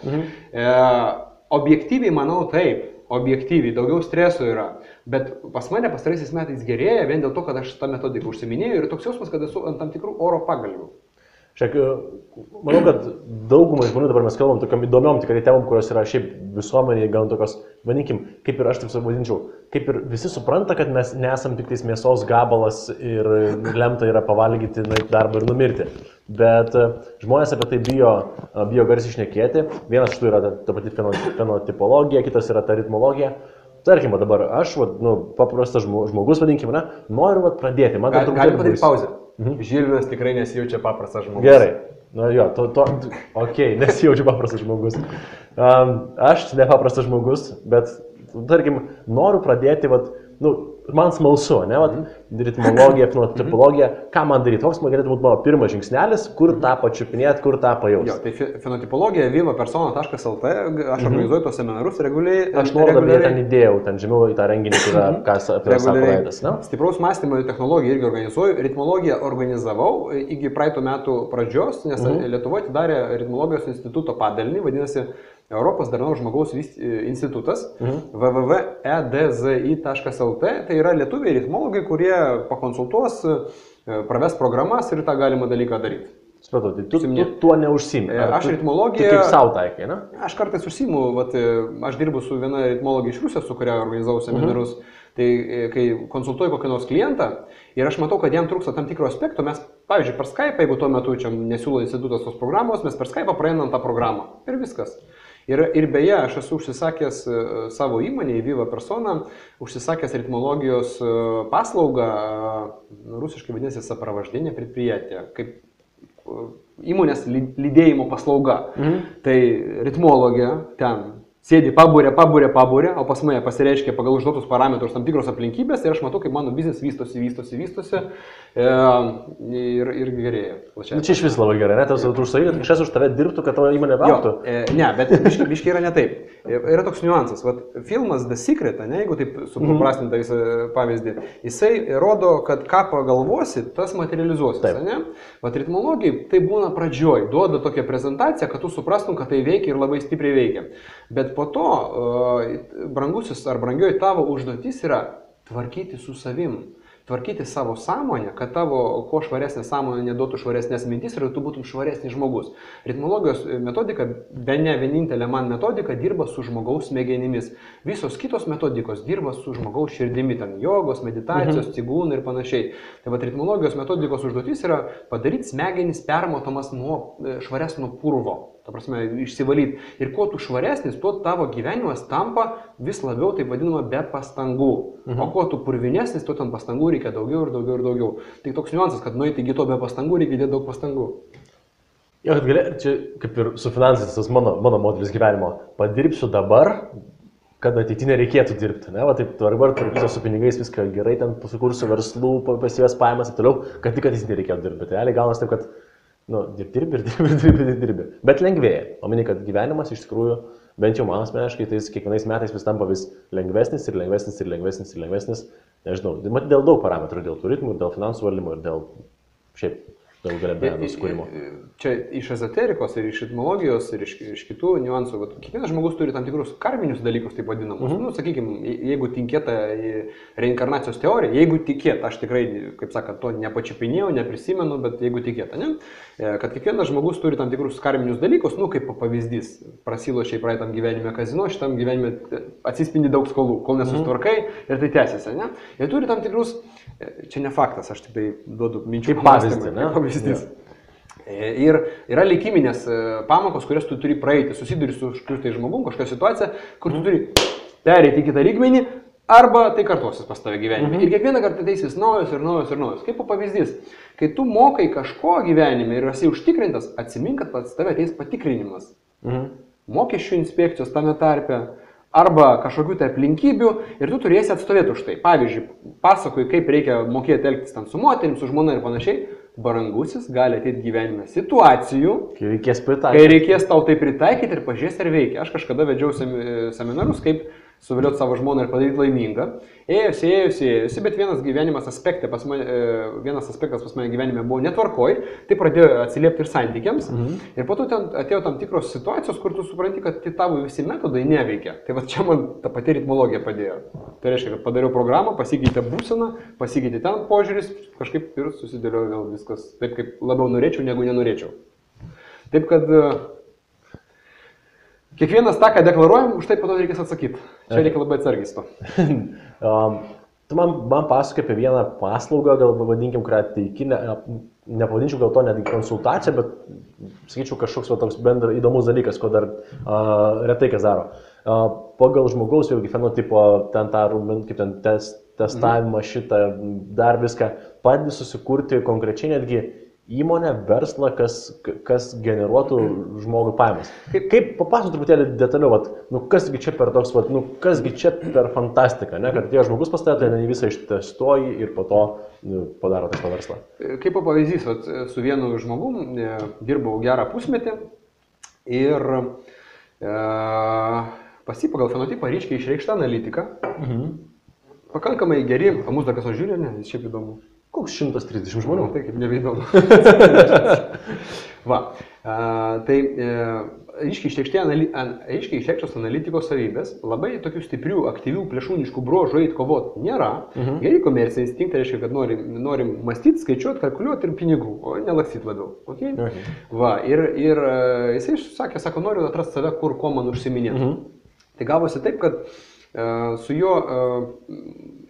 objektyviai manau taip, objektyviai, daugiau streso yra, bet pas mane pastaraisiais metais gerėja vien dėl to, kad aš tą metodiką užsiminėjau ir toks jausmas, kad esu ant tam tikrų oro pagalvių. Šiek, manau, kad daugumai žmonių dabar mes kalbam tokiam įdomiom tikrai temom, kurios yra šiaip visuomenėje, gal tokios, vadinkim, kaip ir aš taip savadinčiau, kaip ir visi supranta, kad mes nesam tik tais mėsos gabalas ir lemta yra pavalgyti darbą ir numirti. Bet žmonės apie tai bijo garsiai šnekėti. Vienas iš tų yra ta pati fenotipologija, kitas yra ta ritmologija. Tarkim, dabar aš, paprastas žmogus, vadinkim, noriu pradėti. Galim padaryti pauzę. Žilvinas tikrai nesijaučia paprastas žmogus. Gerai. Nesijaučiu paprastas žmogus. Aš nepaprastas žmogus, bet, tarkim, noriu pradėti, man smalsu, ritmologija, fenotipologija, ką man daryti, koks man galėtų būti mano pirmas žingsnelis, kur tą pačiupinėti, kur tą pajausti. Tai fenotipologija vivapersona.lt, aš organizuoju tos seminarus reguliariai. Aš nuorodą ten įdėjau, ten žemiau į tą renginį, kas apie tai sako praeitas. Stipraus mąstymo technologiją irgi organizuoju, ritmologiją organizavau iki praeitų metų pradžios, nes Lietuvoje atidarė ritmologijos instituto padalinį, vadinasi Europos darnaus žmogaus institutas, www.edzi.lt, tai yra lietuviai ritmologai, kurie pakonsultuos, praves programas ir tą galima dalyką daryti. Supratau, tai tu tuo neužsiimi. Aš ritmologiją... Tu kaip sau taikai, ne? Aš kartais užsiimu, aš dirbu su viena ritmologija iš Rusijos, su kuria organizavau seminarus, tai kai konsultuoju kokį nors klientą ir aš matau, kad jam trūksta tam tikro aspekto, mes, pavyzdžiui, per Skype, jeigu tuo metu čia nesiūlo institutas tos programos, mes per Skype praeinam tą programą ir viskas. Ir beje, aš esu užsisakęs savo įmonę, Viva Persona, užsisakęs ritmologijos paslaugą, rusiškai vadinasi sapravaždinė предприятие, kaip įmonės lydėjimo paslauga. Tai ritmologija ten sėdi pabūrė, o pas mane pasireiškia pagal užduotus parametrus tam tikros aplinkybės ir aš matau, kaip mano biznis vystosi ir gerėja. Čia iš vis labai gerai, net tu užsakai, kad kažkas už tave dirbtų, kad tavo įmonė augtų. Ne, bet biškai yra ne taip. Yra toks niuansas. Filmas The Secret, jeigu taip supaprastinta pavyzdį, jisai rodo, kad ką pagalvosi, tas materializuosis. Ritmologijai tai būna pradžioj, duoda tokią prezentaciją, kad tu suprastum, kad tai veikia ir labai stipriai veikia. Bet po to, brangusis ar brangioji tavo užduotis yra tvarkyti su savim. Tvarkyti savo sąmonę, kad tavo kuo švaresnė sąmonė neduotų švaresnės mintis ir tu būtum švaresnis žmogus. Ritmologijos metodika, bene vienintelė man metodika, dirba su žmogaus smegenimis. Visos kitos metodikos dirba su žmogaus širdimi, ten jogos, meditacijos, cigūnai ir panašiai. Tai ritmologijos metodikos užduotis yra padaryti smegenis permatomas nuo švaresnio purvo. ta prasme, išsivalyti. Ir kuo tu švaresnis, tuo tavo gyvenimas tampa vis labiau, taip vadinama, be pastangų. O kuo tu purvinesnis, tuo tam pastangų reikia daugiau ir daugiau ir daugiau. Tai toks niuansas, kad nueiti iki to be pastangų reikia dėti daug pastangų. Jo, kad čia kaip ir su finansais, tas mano modelis gyvenimo. Padirbsiu dabar, kad ateityje nereikėtų dirbti. Ne? Va, taip, dabar tvarkysiu su pinigais, viską gerai, ten sukursiu verslų, pasivės pajamas ir toliau, kad tik ateityje nereikėtų dirbti. Bet realiai gaunas taip, kad dirbi. Bet lengvėja. O mini, kad gyvenimas iš tikrųjų, bent jau man asmeniškai, tai kiekvienais metais vis tampa vis lengvesnis. Nežinau, matyt, dėl daug parametrų, dėl tų ritmų, dėl finansų valdymo ir dėl šiaip daug galimybių sukūrimo. Čia iš ezoterikos ir iš etmologijos ir iš kitų niuansų. Kiekvienas žmogus turi tam tikrus karminius dalykus, taip vadinamus. Nu, sakykime, jeigu tikėta į reinkarnacijos teoriją, jeigu tikėta, aš tikrai, kaip sakant, to nepačiupinėjau, neprisimenu, bet jeigu tikėta, ne? Kad kiekvienas žmogus turi tam tikrus karminius dalykus, nu, kaip pavyzdys, prasilošiai praeitam gyvenime kazino, šitam gyvenime atsispindi daug skolų, kol nesustvarkai ir tai tęsiasi, ne? Ir turi tam tikrus, čia ne faktas, aš tik tai duodu minčių pavyzdys. Ir yra likiminės pamokos, kurias tu turi praeiti, susiduri su kažkokiu žmogum, kažkokia situacija, kur tu turi pereiti į kitą lygmenį, arba tai kartuosis pas tave gyvenime. Ir kiekvieną kartą ateis naujos. Kaip pavyzdys, kai tu mokai kažko gyvenime ir esi užtikrintas, atsimink, kad pas tave ateis patikrinimas. Mokesčių inspekcijos tame tarpe, arba kažkokių tai aplinkybių ir tu turėsi atstovėti už tai. Pavyzdžiui, pasakoju, kaip reikia mokėti elgtis ten su moterim, su žmona ir panašiai. Barangusis gali ateiti gyvenime situacijų, kai reikės tau tai pritaikyti ir pažiūrės, ar veikia. Aš kažkada vedžiau seminarus, kaip suvilioti savo žmoną ir padaryti laimingą. Ėjusi, bet vienas aspektas pas mane gyvenime buvo netvarkoj, tai pradėjo atsiliepti ir santykiams. Ir po to ten atėjo tam tikros situacijos, kur tu supranti, kad tavo visi metodai neveikia. Tai va čia man ta pati ritmologija padėjo. Tai reiškia, kad padariau programą, pasikeitė būsena, pasikeitė ten požiūris, kažkaip ir susidėliojo vėl viskas taip, kaip labiau norėčiau, negu nenorėčiau. Taip kad kiekvienas tą, ką deklaruojam, už tai po to reikės atsakyti. Čia reikia labai atsargiai to. Tu man pasakoji apie vieną paslaugą, gal pavadinkim, kurią teiki, nepavadinčiau gal to netgi konsultaciją, bet sakyčiau kažkoks toks bendras įdomus dalykas, ko dar retai kas daro. Pagal žmogaus vėlgi fenotipo, ten tą kaip ten testavimą šitą, dar viską, padedi susikurti konkrečiai netgi įmonę, verslą, kas generuotų žmogui pajamas. Kaip papasakok truputėlį detaliau, kasgi čia per toks, kasgi čia per fantastiką, ne? Kad tie žmogus pastatė, tai visą ištestuoji ir po to padaro tą verslą. Kaip pavyzdys, su vienu žmogum dirbau gerą pusmetį ir pas jį pagal fenotipą ryškiai išreikšta analitika. Pakankamai geri, mūsų dar kas žiūri, ne, jis šiaip įdomu. Koks 130 žmonių? Tai kaip nebeįdomu. Va, tai aiškiai išreikštos analitikos savybės, labai tokių stiprių, aktyvių, plėšūniškų bruožų eit kovot nėra. Geri komercijai instinktai reiškia, kad norim mąstyti, skaičiuoti, kalkuliuoti ir pinigų, o nelaksyti labiau. Okay? Va, ir jisai sako, noriu atrasti save, ko man užsiminėti. Tai gavosi taip, kad su juo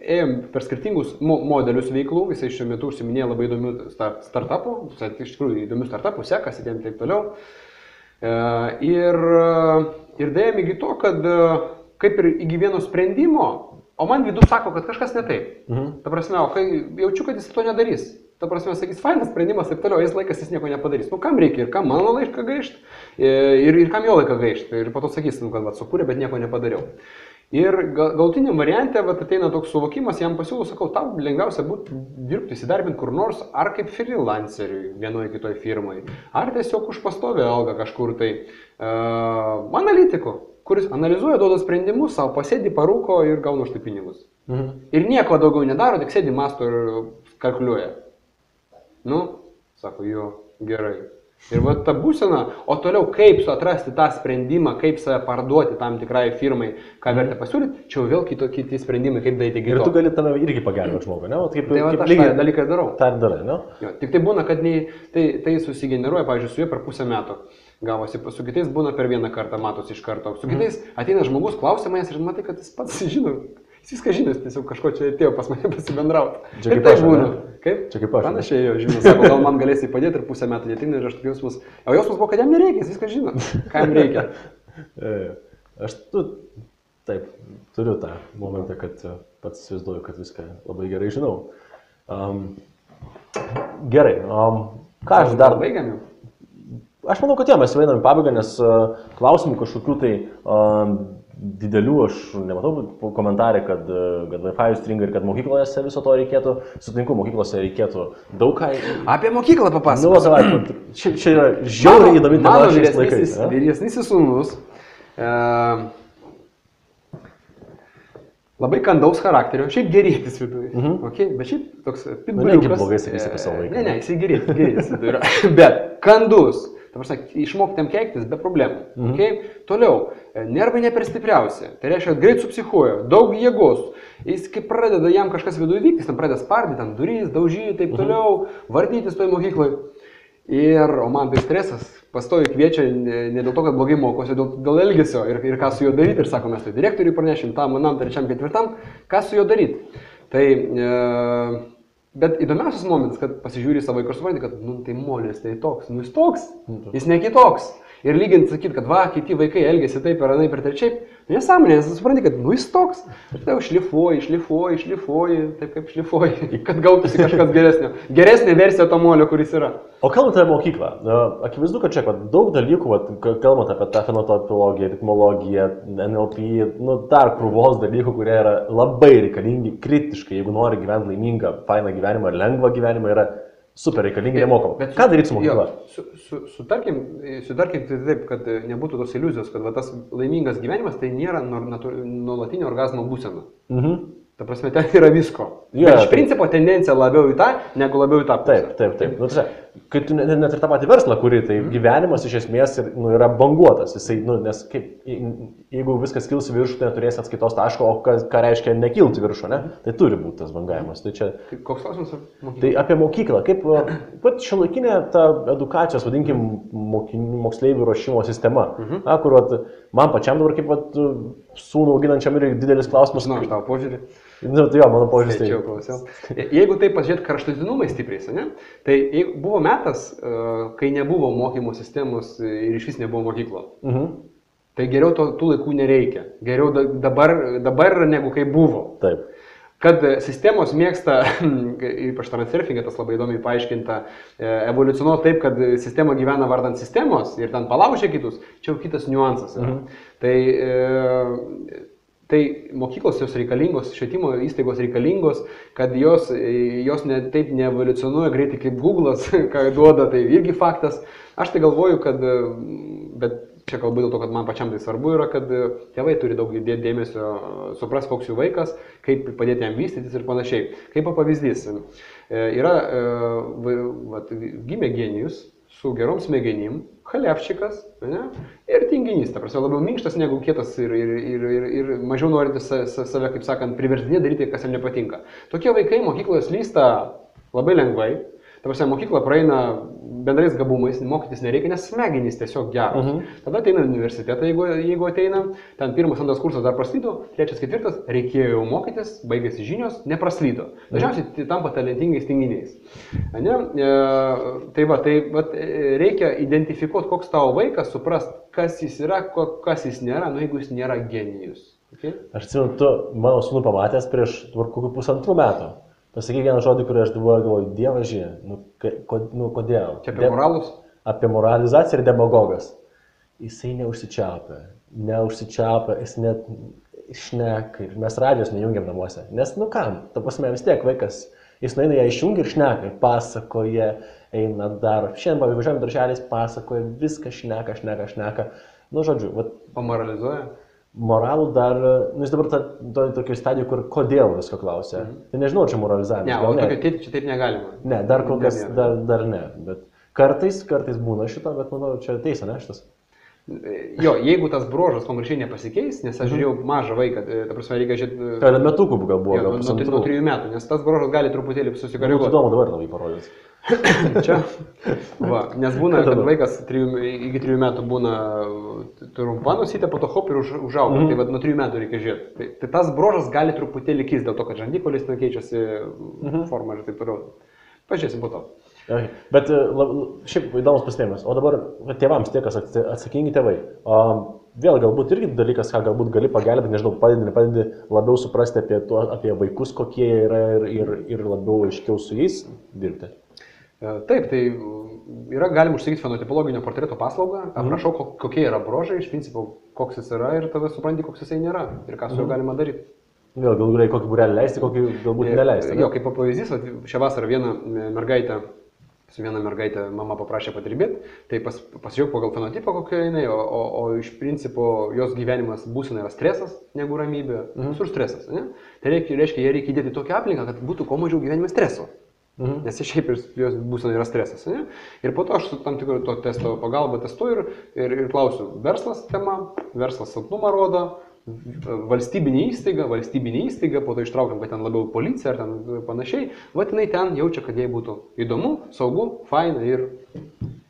ėjom per skirtingus modelius veiklų, jisai šiuo metu užsiminėjo labai įdomių startupų, iš tikrųjų įdomių startupų, sekasi ir taip toliau. Ir dėjom iki to, kad kaip ir iki vieno sprendimo, o man vidų sako, kad kažkas ne taip. Ta prasme, o kai jaučiu, kad jis to nedarys. Ta prasme, sakys, fainas sprendimas ir toliau, jis laikas jis nieko nepadarys. Kam reikia ir kam mano laiką gaišti, ir kam jo laiką gaišti. Ir po to sakys, kad sukūrė, bet nieko nepadariau. Ir galutiniam variante ateina toks suvokimas, jam pasiūlau, sakau, tau lengviausia būtų dirbti, įsidarbinti kur nors, ar kaip freelanceriui vienoje kitoje firmoje, ar tiesiog už pastovę algą kažkur tai analitiku, kuris analizuoja, duoda sprendimus, savo pasėdi, parūko ir gauna už tai pinigus. Ir nieko daugiau nedaro, tik sėdi, masto ir kalkuliuoja. Sako, jo, gerai. Ir va ta būsena, o toliau kaip atrasti tą sprendimą, kaip save parduoti tam tikrai firmai, ką verta pasiūlyti, čia jau vėl kiti sprendimai, kaip daryti geriau. Ir tu gali tame irgi pagelbėti žmogui, ne? Tai va, aš tą dalyką darau. Tai darai, ne? Jo, tik tai būna, kad tai susigeneruoja, pavyzdžiui, su juo per pusę metų. Gavosi, su kitais būna per vieną kartą, matosi iš karto. Su kitais ateina žmogus, klausia manęs ir matai, kad jis pats žino. Jis viską žino, jis tiesiog kažko čia atėjo pas mane pasibendrauti. Čia kaip tai aš, būna. ne? Kaip? Čia kaip aš. Panašiai jo, žinau, sako, gal man galėsi padėti ir pusę metų netina ir aš tokius jausmus. O jausmus buvo, kad jam nereikia, jis viską žino. Ką jam reikia? Aš taip, turiu tą momentą, kad pats įsivaizduoju, kad viską labai gerai žinau. Gerai, ką aš dar... Baigiam jau? Aš manau, kad mes jau einam į pabaigą, nes klausimų kažkokių tai didelių aš nematau komentarį, kad Wi-Fi stringa ir kad mokyklose viso to reikėtų. Sutinku, mokyklose reikėtų daug ką... Apie mokyklą papasakok. Nu, savai, čia yra žiauriai įdomi tema šiais laikais. Mano vyresnysis sūnus labai kandaus charakterio, šiaip gerėtis viduje. Okay? Bet šiaip toks pitbuliukas. Negi blogai sakysi apie savo vaiką. Ne, jisai gerėtis viduje. Bet kandus. Ta prasme, išmokti jam keiktis be problemų. Okay? Toliau, nervai ne per stipriausi. Tai reiškia, kad greit supsichuoja, daug jėgos. Jis kaip pradeda jam kažkas viduje vykti, jis tam pradeda spardyti, tam durys, daužyti, taip toliau, vartytis toj mokyklai. O man tai stresas, pastovi kviečia ne dėl to, kad blogai mokosi, dėl elgesio ir ką su juo daryti. Ir sako, mes tai direktoriui pranešim, tam, manam, trečiam, ketvirtam, ką su juo daryti. Tai... Bet įdomiausias momentas, kad pasižiūri savo vaiką ir supranti, kad, tai molis, tai toks, jis toks, jis ne kitoks. Ir lyginti sakyti, kad kiti vaikai elgesi taip ir anaip ir trečiaip, nesąmonė, nes supranti, kad, jis toks. Ir tai jau šlifuoji, taip kaip šlifuoji, kad gautųsi kažkas geresnio. Geresnė versija to molio, kuris yra. O kalbant apie mokyklą, akivaizdu, kad čia daug dalykų, kalbant apie tą fenotopologiją, ritmologiją, NLP, dar krūvos dalykų, kurie yra labai reikalingi, kritiškai, jeigu nori gyventi laimingą, fainą gyvenimą ir lengvą gyvenimą, yra super reikalingi, nemokam. Ką daryti su mokykla? Sutarkim tai taip, kad nebūtų tos iliuzijos, kad tas laimingas gyvenimas tai nėra nuolatinio orgazmo būsena. Ta prasme, ten yra visko. Bet iš principo tendencija labiau į tą, negu labiau į tą pusę. Taip. Kai tu net ir tą patį verslą kuri, tai gyvenimas iš esmės yra banguotas. Jisai, nes jeigu viskas kils į viršų, tai neturės atskaitos taško, o ką reiškia nekilti viršų, ne? Tai turi būti tas bangavimas. Tai čia... Koks klausimas apie mokyklą? Tai apie mokyklą. Kaip pat šiuolaikinė ta edukacijos, vadinkim, moksleivių ruošimo sistema, kur man pačiam dabar kaip sūnų auginančiam ir didelis klausimas. Žinau, aš tavo požiūrį. Tai jo, mano požiūris tai. Jeigu taip pasižiūrėt kraštutinumai stipriai, ne? Tai buvo metas, kai nebuvo mokymo sistemos ir iš vis nebuvo mokyklo. Tai geriau tų laikų nereikia. Geriau dabar negu kai buvo. Taip. Kad sistemos mėgsta, ypač transurfingė, tas labai įdomiai paaiškinta, evoliucionuoti taip, kad sistema gyvena vardant sistemos ir ten palaužia kitus, čia jau kitas niuansas yra. Tai mokyklos jos reikalingos, švietimo įstaigos reikalingos, kad jos taip neevoliucionuoja greitai kaip Google'as, ką duoda, tai irgi faktas. Aš tai galvoju, kad, bet čia kalbu dėl to, kad man pačiam tai svarbu yra, kad tėvai turi daug dėti dėmesio, supras, koks jų vaikas, kaip padėti jam vystytis ir panašiai. Kaip pavyzdys, gimė genijus su gerom smegenim, chalevčikas ir tinginys, ta prasme, labiau minkštas negu kietas ir mažiau norintis save, kaip sakant, priverstinė daryti, kas jam nepatinka. Tokie vaikai mokykloje slysta labai lengvai, ta prasme, mokykla praeina bendrais gabumais, mokytis nereikia, nes smegenys tiesiog geros. Tada ateina universitetą, jeigu ateina, ten 1-2 kursas dar praslydo, 3-4 reikėjo jau mokytis, baigėsi žinios, nepraslydo. Dažniausiai tampa talentingais tinginiais. Tai reikia identifikuoti, koks tavo vaikas, suprast, kas jis yra, kas jis nėra, jeigu jis nėra genijus. Okay? Aš atsimenu, tu mano sūnų pamatęs prieš kokių 1,5 metų. Pasakyk vieną žodį, kurį aš galvoju, dievaži, kodėl? Čia apie moralus? Apie moralizaciją ir demagogas. Jisai neužsičiapia, jis net šneka ir mes radijos nejungiam namuose. Nes, kam, ta prasme, vis tiek vaikas, jis nueina ją išjungia ir šneka, pasakoja, eina dar, šiandien važiuojam darželiais, pasakoja, viską šneka. Žodžiu, pamoralizuoja? Moralų dar, jis dabar tokio stadijų, kur kodėl visko klausia. Tai nežinau, čia moralizavimas. Ne, o tokio čia taip negalima. Ne, dar kol kas dar ne. Bet kartais būna šito, bet manau, čia teisė, ne šitas? Jo, jeigu tas bruožas konkrečiai nepasikeis, nes aš žiūrėjau mažą vaiką, ta prasme, reikia žiūrėti... Tai metukų gal buvo, gal pusantrų. Nuo 3 metų, nes tas bruožas gali truputėlį susikoreguoti. Įdomu dabar labai parodyti. Čia, va, nes būna, kad vaikas iki 3 metų būna trumpa nusytė, po to hop ir užauga, tai nuo 3 metų reikia žiūrėti. Tai tas bruožas gali truputėlį keisti dėl to, kad žandikolis keičiasi forma ir taip toliau. Pažiūrėsim po to. Okay. Bet šiaip įdomus pastebėjimas. O dabar tėvams tie, kas atsakingi tėvai. Vėl galbūt irgi dalykas, ką galbūt gali pagelbėti, nežinau, padedi labiau suprasti apie vaikus, kokie jie yra ir labiau aiškiau su jais dirbti. Taip, tai galim užsakyti fenotipologinio portreto paslaugą, aprašau, kokie yra bruožai, iš principo, koks jis yra ir tada supranti, koks jisai nėra ir ką su juo galima daryti. Vėl galbūt reikia kokį būrelį leisti, kokį galbūt neleisti. Jo, kaip pavyzdys, šią vasarą viena mergaitė mama paprašė padirbėti, tai pasižiūrėjau pagal fenotipą kokia jinai, o iš principo jos gyvenimas būsena yra stresas negu ramybė, visur stresas. Ne? Tai reiškia, jie reikia įdėti tokią aplinką, kad būtų kuo mažiau gyvenime streso. Nes šiaip jos būsena yra stresas. Ne? Ir po to aš su tam tikru to testo pagalba testuoju ir klausiu, verslas tema, verslas silpnumą rodo, valstybinė įstaiga, po to ištraukiam, kad ten labiau policija ar ten panašiai, jinai ten jaučia, kad jai būtų įdomu, saugu, faina ir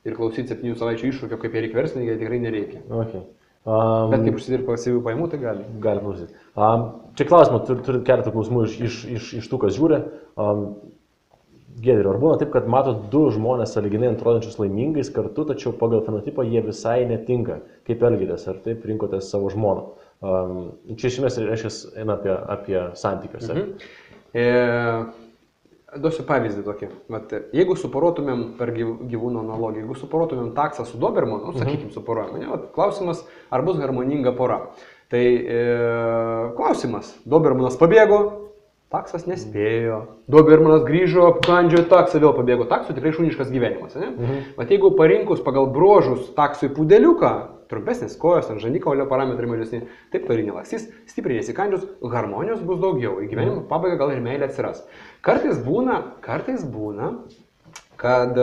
klausyti 7 savaičių iššūkio, kaip jie reikia verslininkai, tikrai nereikia. Okay. Bet kaip užsidirba pasyvių pajamų, tai gali. Gali klausyti. Čia klausimą, turit keletą klausimų iš tų, kas žiūri. Giedriau, ar būna taip, kad matot 2 žmonės sąlyginai atrodančius laimingais kartu, tačiau pagal fenotipą jie visai netinka? Kaip elgitės? Ar taip rinkotės savo žmoną? Čia iš esmės reiškia eina apie santykius. Duosiu pavyzdį tokį. Jeigu suporuotumėm per gyvūno analogiją, jeigu suporuotumėm taksą su dobermanu, sakykim, suporuojame, klausimas, ar bus harmoninga pora. Tai klausimas, dobermanas pabėgo, taksas nespėjo, dobermanas grįžo, apkandžiojo taksą, vėl pabėgo, taksų tikrai šuniškas gyvenimas. Vat jeigu parinkus pagal bruožus taksui pudeliuką, trumpesnės kojos, ant žandikaulio parametrai mažesni, taip toli nelakstys, stipriai nesikandžius, harmonijos bus daugiau, į gyvenimo pabaigą gal ir meilė atsiras. Kartais būna, kad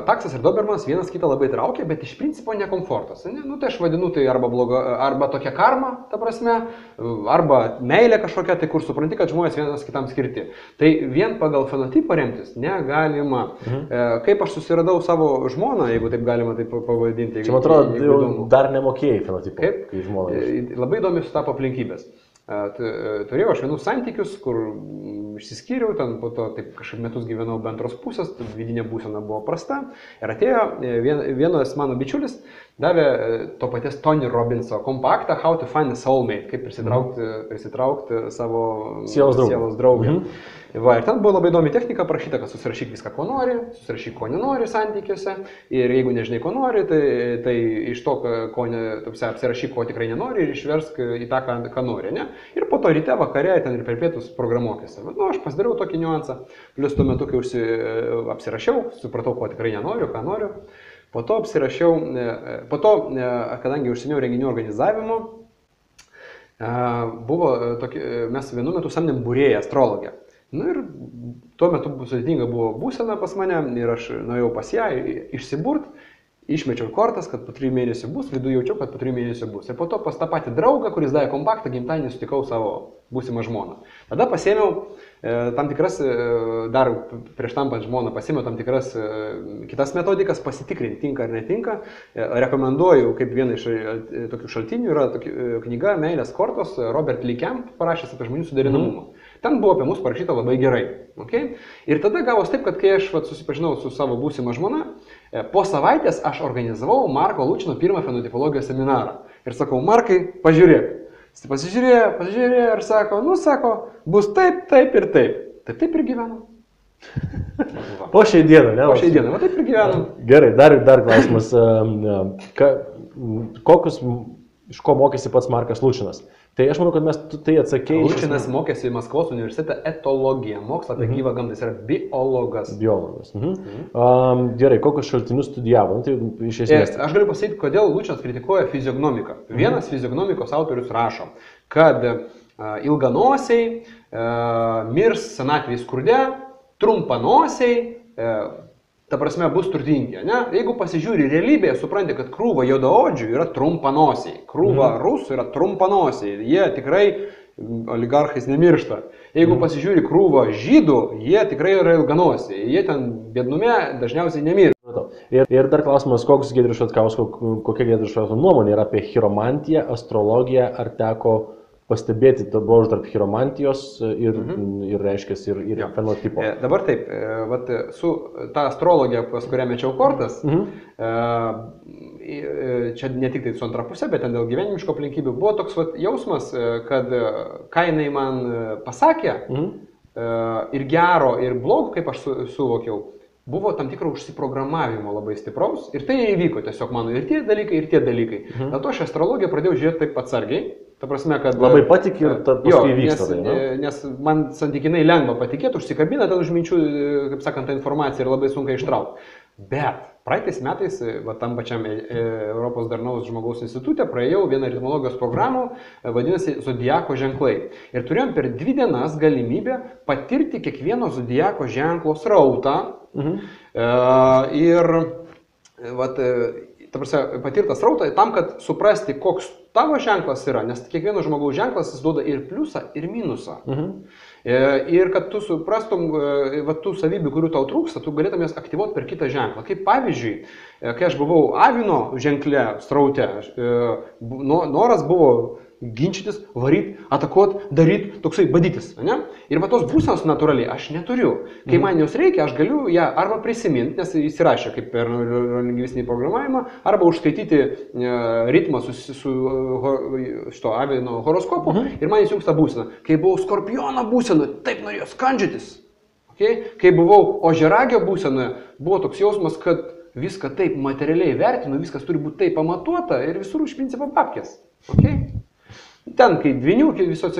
taksas ir dobermanas vienas kitą labai traukia, bet iš principo nekomfortas. Ne? Tai aš vadinu tai arba tokia karma, ta prasme, arba meilė kažkokia, tai kur supranti, kad žmonės vienas kitam skirti. Tai vien pagal fenotipą remtis negalima. Kaip aš susiradau savo žmoną, jeigu taip galima taip pavadinti. Čia man atrodo, dar nemokėjai fenotipą. Kaip? Kai žmona. Labai įdomi sutapo aplinkybės. Turėjau aš vienus santykius, kur išsiskyriau, ten po to taip kažkaip metus gyvenau be antros pusės, vidinė būsena buvo prasta. Ir atėjo vienas mano bičiulis, davė to paties Tony Robbinso kompaktą How to Find a Soulmate, kaip prisitraukti savo sielos draugę. Ir ten buvo labai įdomi technika parašyta, kad susirašyk viską, ko nori, susirašyk, ko nenori santykiuose. Ir jeigu nežinai, ko nori, tai iš to, apsirašyk, ko tikrai nenori ir išversk į tą, ką nori. Ne? Ir po to ryte, vakare, ten ir per pietus programuokėsi. Aš pasidariau tokį niuansą. Plius tuo metu, kai apsirašiau, supratau, ko tikrai nenoriu, ką noriu. Po to apsirašiau, kadangi užsiėmiau renginių organizavimu, mes vienu metu samdėm būrėją, astrologę. Ir tuo metu sudėtinga buvo būsena pas mane ir aš nuėjau pas ją išsiburt, išmečiau kortas, kad po 3 mėnesių bus, viduje jaučiau, kad po 3 mėnesių bus. Ir po to pas tą patį draugą, kuris davė kompaktą, gimtadienį sutikau savo būsimą žmoną. Tada pasėmiau tam tikras, dar prieš tampant žmoną, pasėmiau tam tikras kitas metodikas, pasitikrinti, tinka ar netinka. Rekomenduoju, kaip vieną iš tokių šaltinių, yra knyga Meilės kortos, Robert Lee Camp parašęs apie žmonių suderinamumą. Ten buvo apie mus parašyta labai gerai. Okay? Ir tada gavos taip, kad kai aš susipažinau su savo būsima žmona, po savaitės aš organizavau Marko Lučino pirmą fenotipologijos seminarą. Ir sakau, Markai, pažiūrėk. Jis pasižiūrėjo ir sako, bus taip, taip ir taip. Taip ir gyvenam. Po šiai dieną, ne? Po šiai dieną, taip ir gyvenam. Gerai, dar klausimas. Iš ko mokėsi pats Markas Lučinas? Tai aš manau, kad mes tai atsakėjai. Lučinas mokėsi Maskvos universitete etologiją, mokslą apie gyvą gamtą, jis yra biologas. Gerai, kokius šaltinius studijavo? Tai iš esmės. Aš galiu pasakyti, kodėl Lučinas kritikuoja fiziognomiką. Vienas fiziognomikos autorius rašo, kad ilganosiai mirs senatvėje skurde, trumpanosiai ta prasme, bus turtingi, ne? Jeigu pasižiūri realybėje, supranti, kad krūva juodaodžių yra trumpanosiai, krūva rusų yra trumpanosiai, jie tikrai oligarchais nemiršta. Jeigu pasižiūri krūvą žydų, jie tikrai yra ilganosiai, jie ten biednume dažniausiai nemiršta. Ir dar klausimas, kokia Giedriaus Šatkausko nuomonė yra apie chiromantiją, astrologiją, ar teko pastebėti to bruožų tarp chiromantijos ir reiškia, ir fenotipo. Dabar taip, vat, su ta astrologija, pas kurią mečiau kortas, čia ne tik tai su antra pusė, bet ten dėl gyvenimiško aplinkybių, buvo toks vat, jausmas, kad ką jinai man pasakė, ir gero, ir blogo, kaip aš suvokiau, buvo tam tikro užsiprogramavimo labai stipraus ir tai įvyko tiesiog mano ir tie dalykai. Dėl to aš astrologiją pradėjau žiūrėti taip atsargiai. Ta prasme, kad labai patikė ir paskui vyksta. Nes man santykinai lengva patikėti, užsikabina ten už minčių, kaip sakant, tą informaciją ir labai sunkiai ištraukti. Bet praeitais metais, tam pačiam Europos darnaus žmogaus institutė, praėjau vieną ritmologijos programą, vadinasi Zodiako ženklai. Ir turėjom per 2 dienas galimybę patirti kiekvieno Zodiako ženklo srautą. Ir ta prasme, patirtas srautą tam, kad suprasti, koks tavo ženklas yra, nes kiekvieno žmogaus ženklas jis duoda ir pliusą, ir minusą. Ir kad tu suprastum tų savybių, kurių tau trūksta, tu galėtum jas aktyvuoti per kitą ženklą. Kaip pavyzdžiui, kai aš buvau avino ženkle sraute, noras buvo ginčytis, varyt, atakuot, daryt, toksai badytis. Ne? Ir va tos būsenos natūraliai aš neturiu. Kai man jos reikia, aš galiu ją arba prisiminti, nes įsirašė kaip per lingvistinį programavimą, arba užskaityti ritmą su šito avino horoskopu ir man įsijungs tą būseną. Kai buvau skorpiono būsenoje, taip norėjau skandžytis. Okay? Kai buvau ožiaragio būsenoje, buvo toks jausmas, kad viską taip materialiai vertinu, viskas turi būti taip pamatuota ir visur iš principo babkės. Okay? Ten, kai dvinių, visos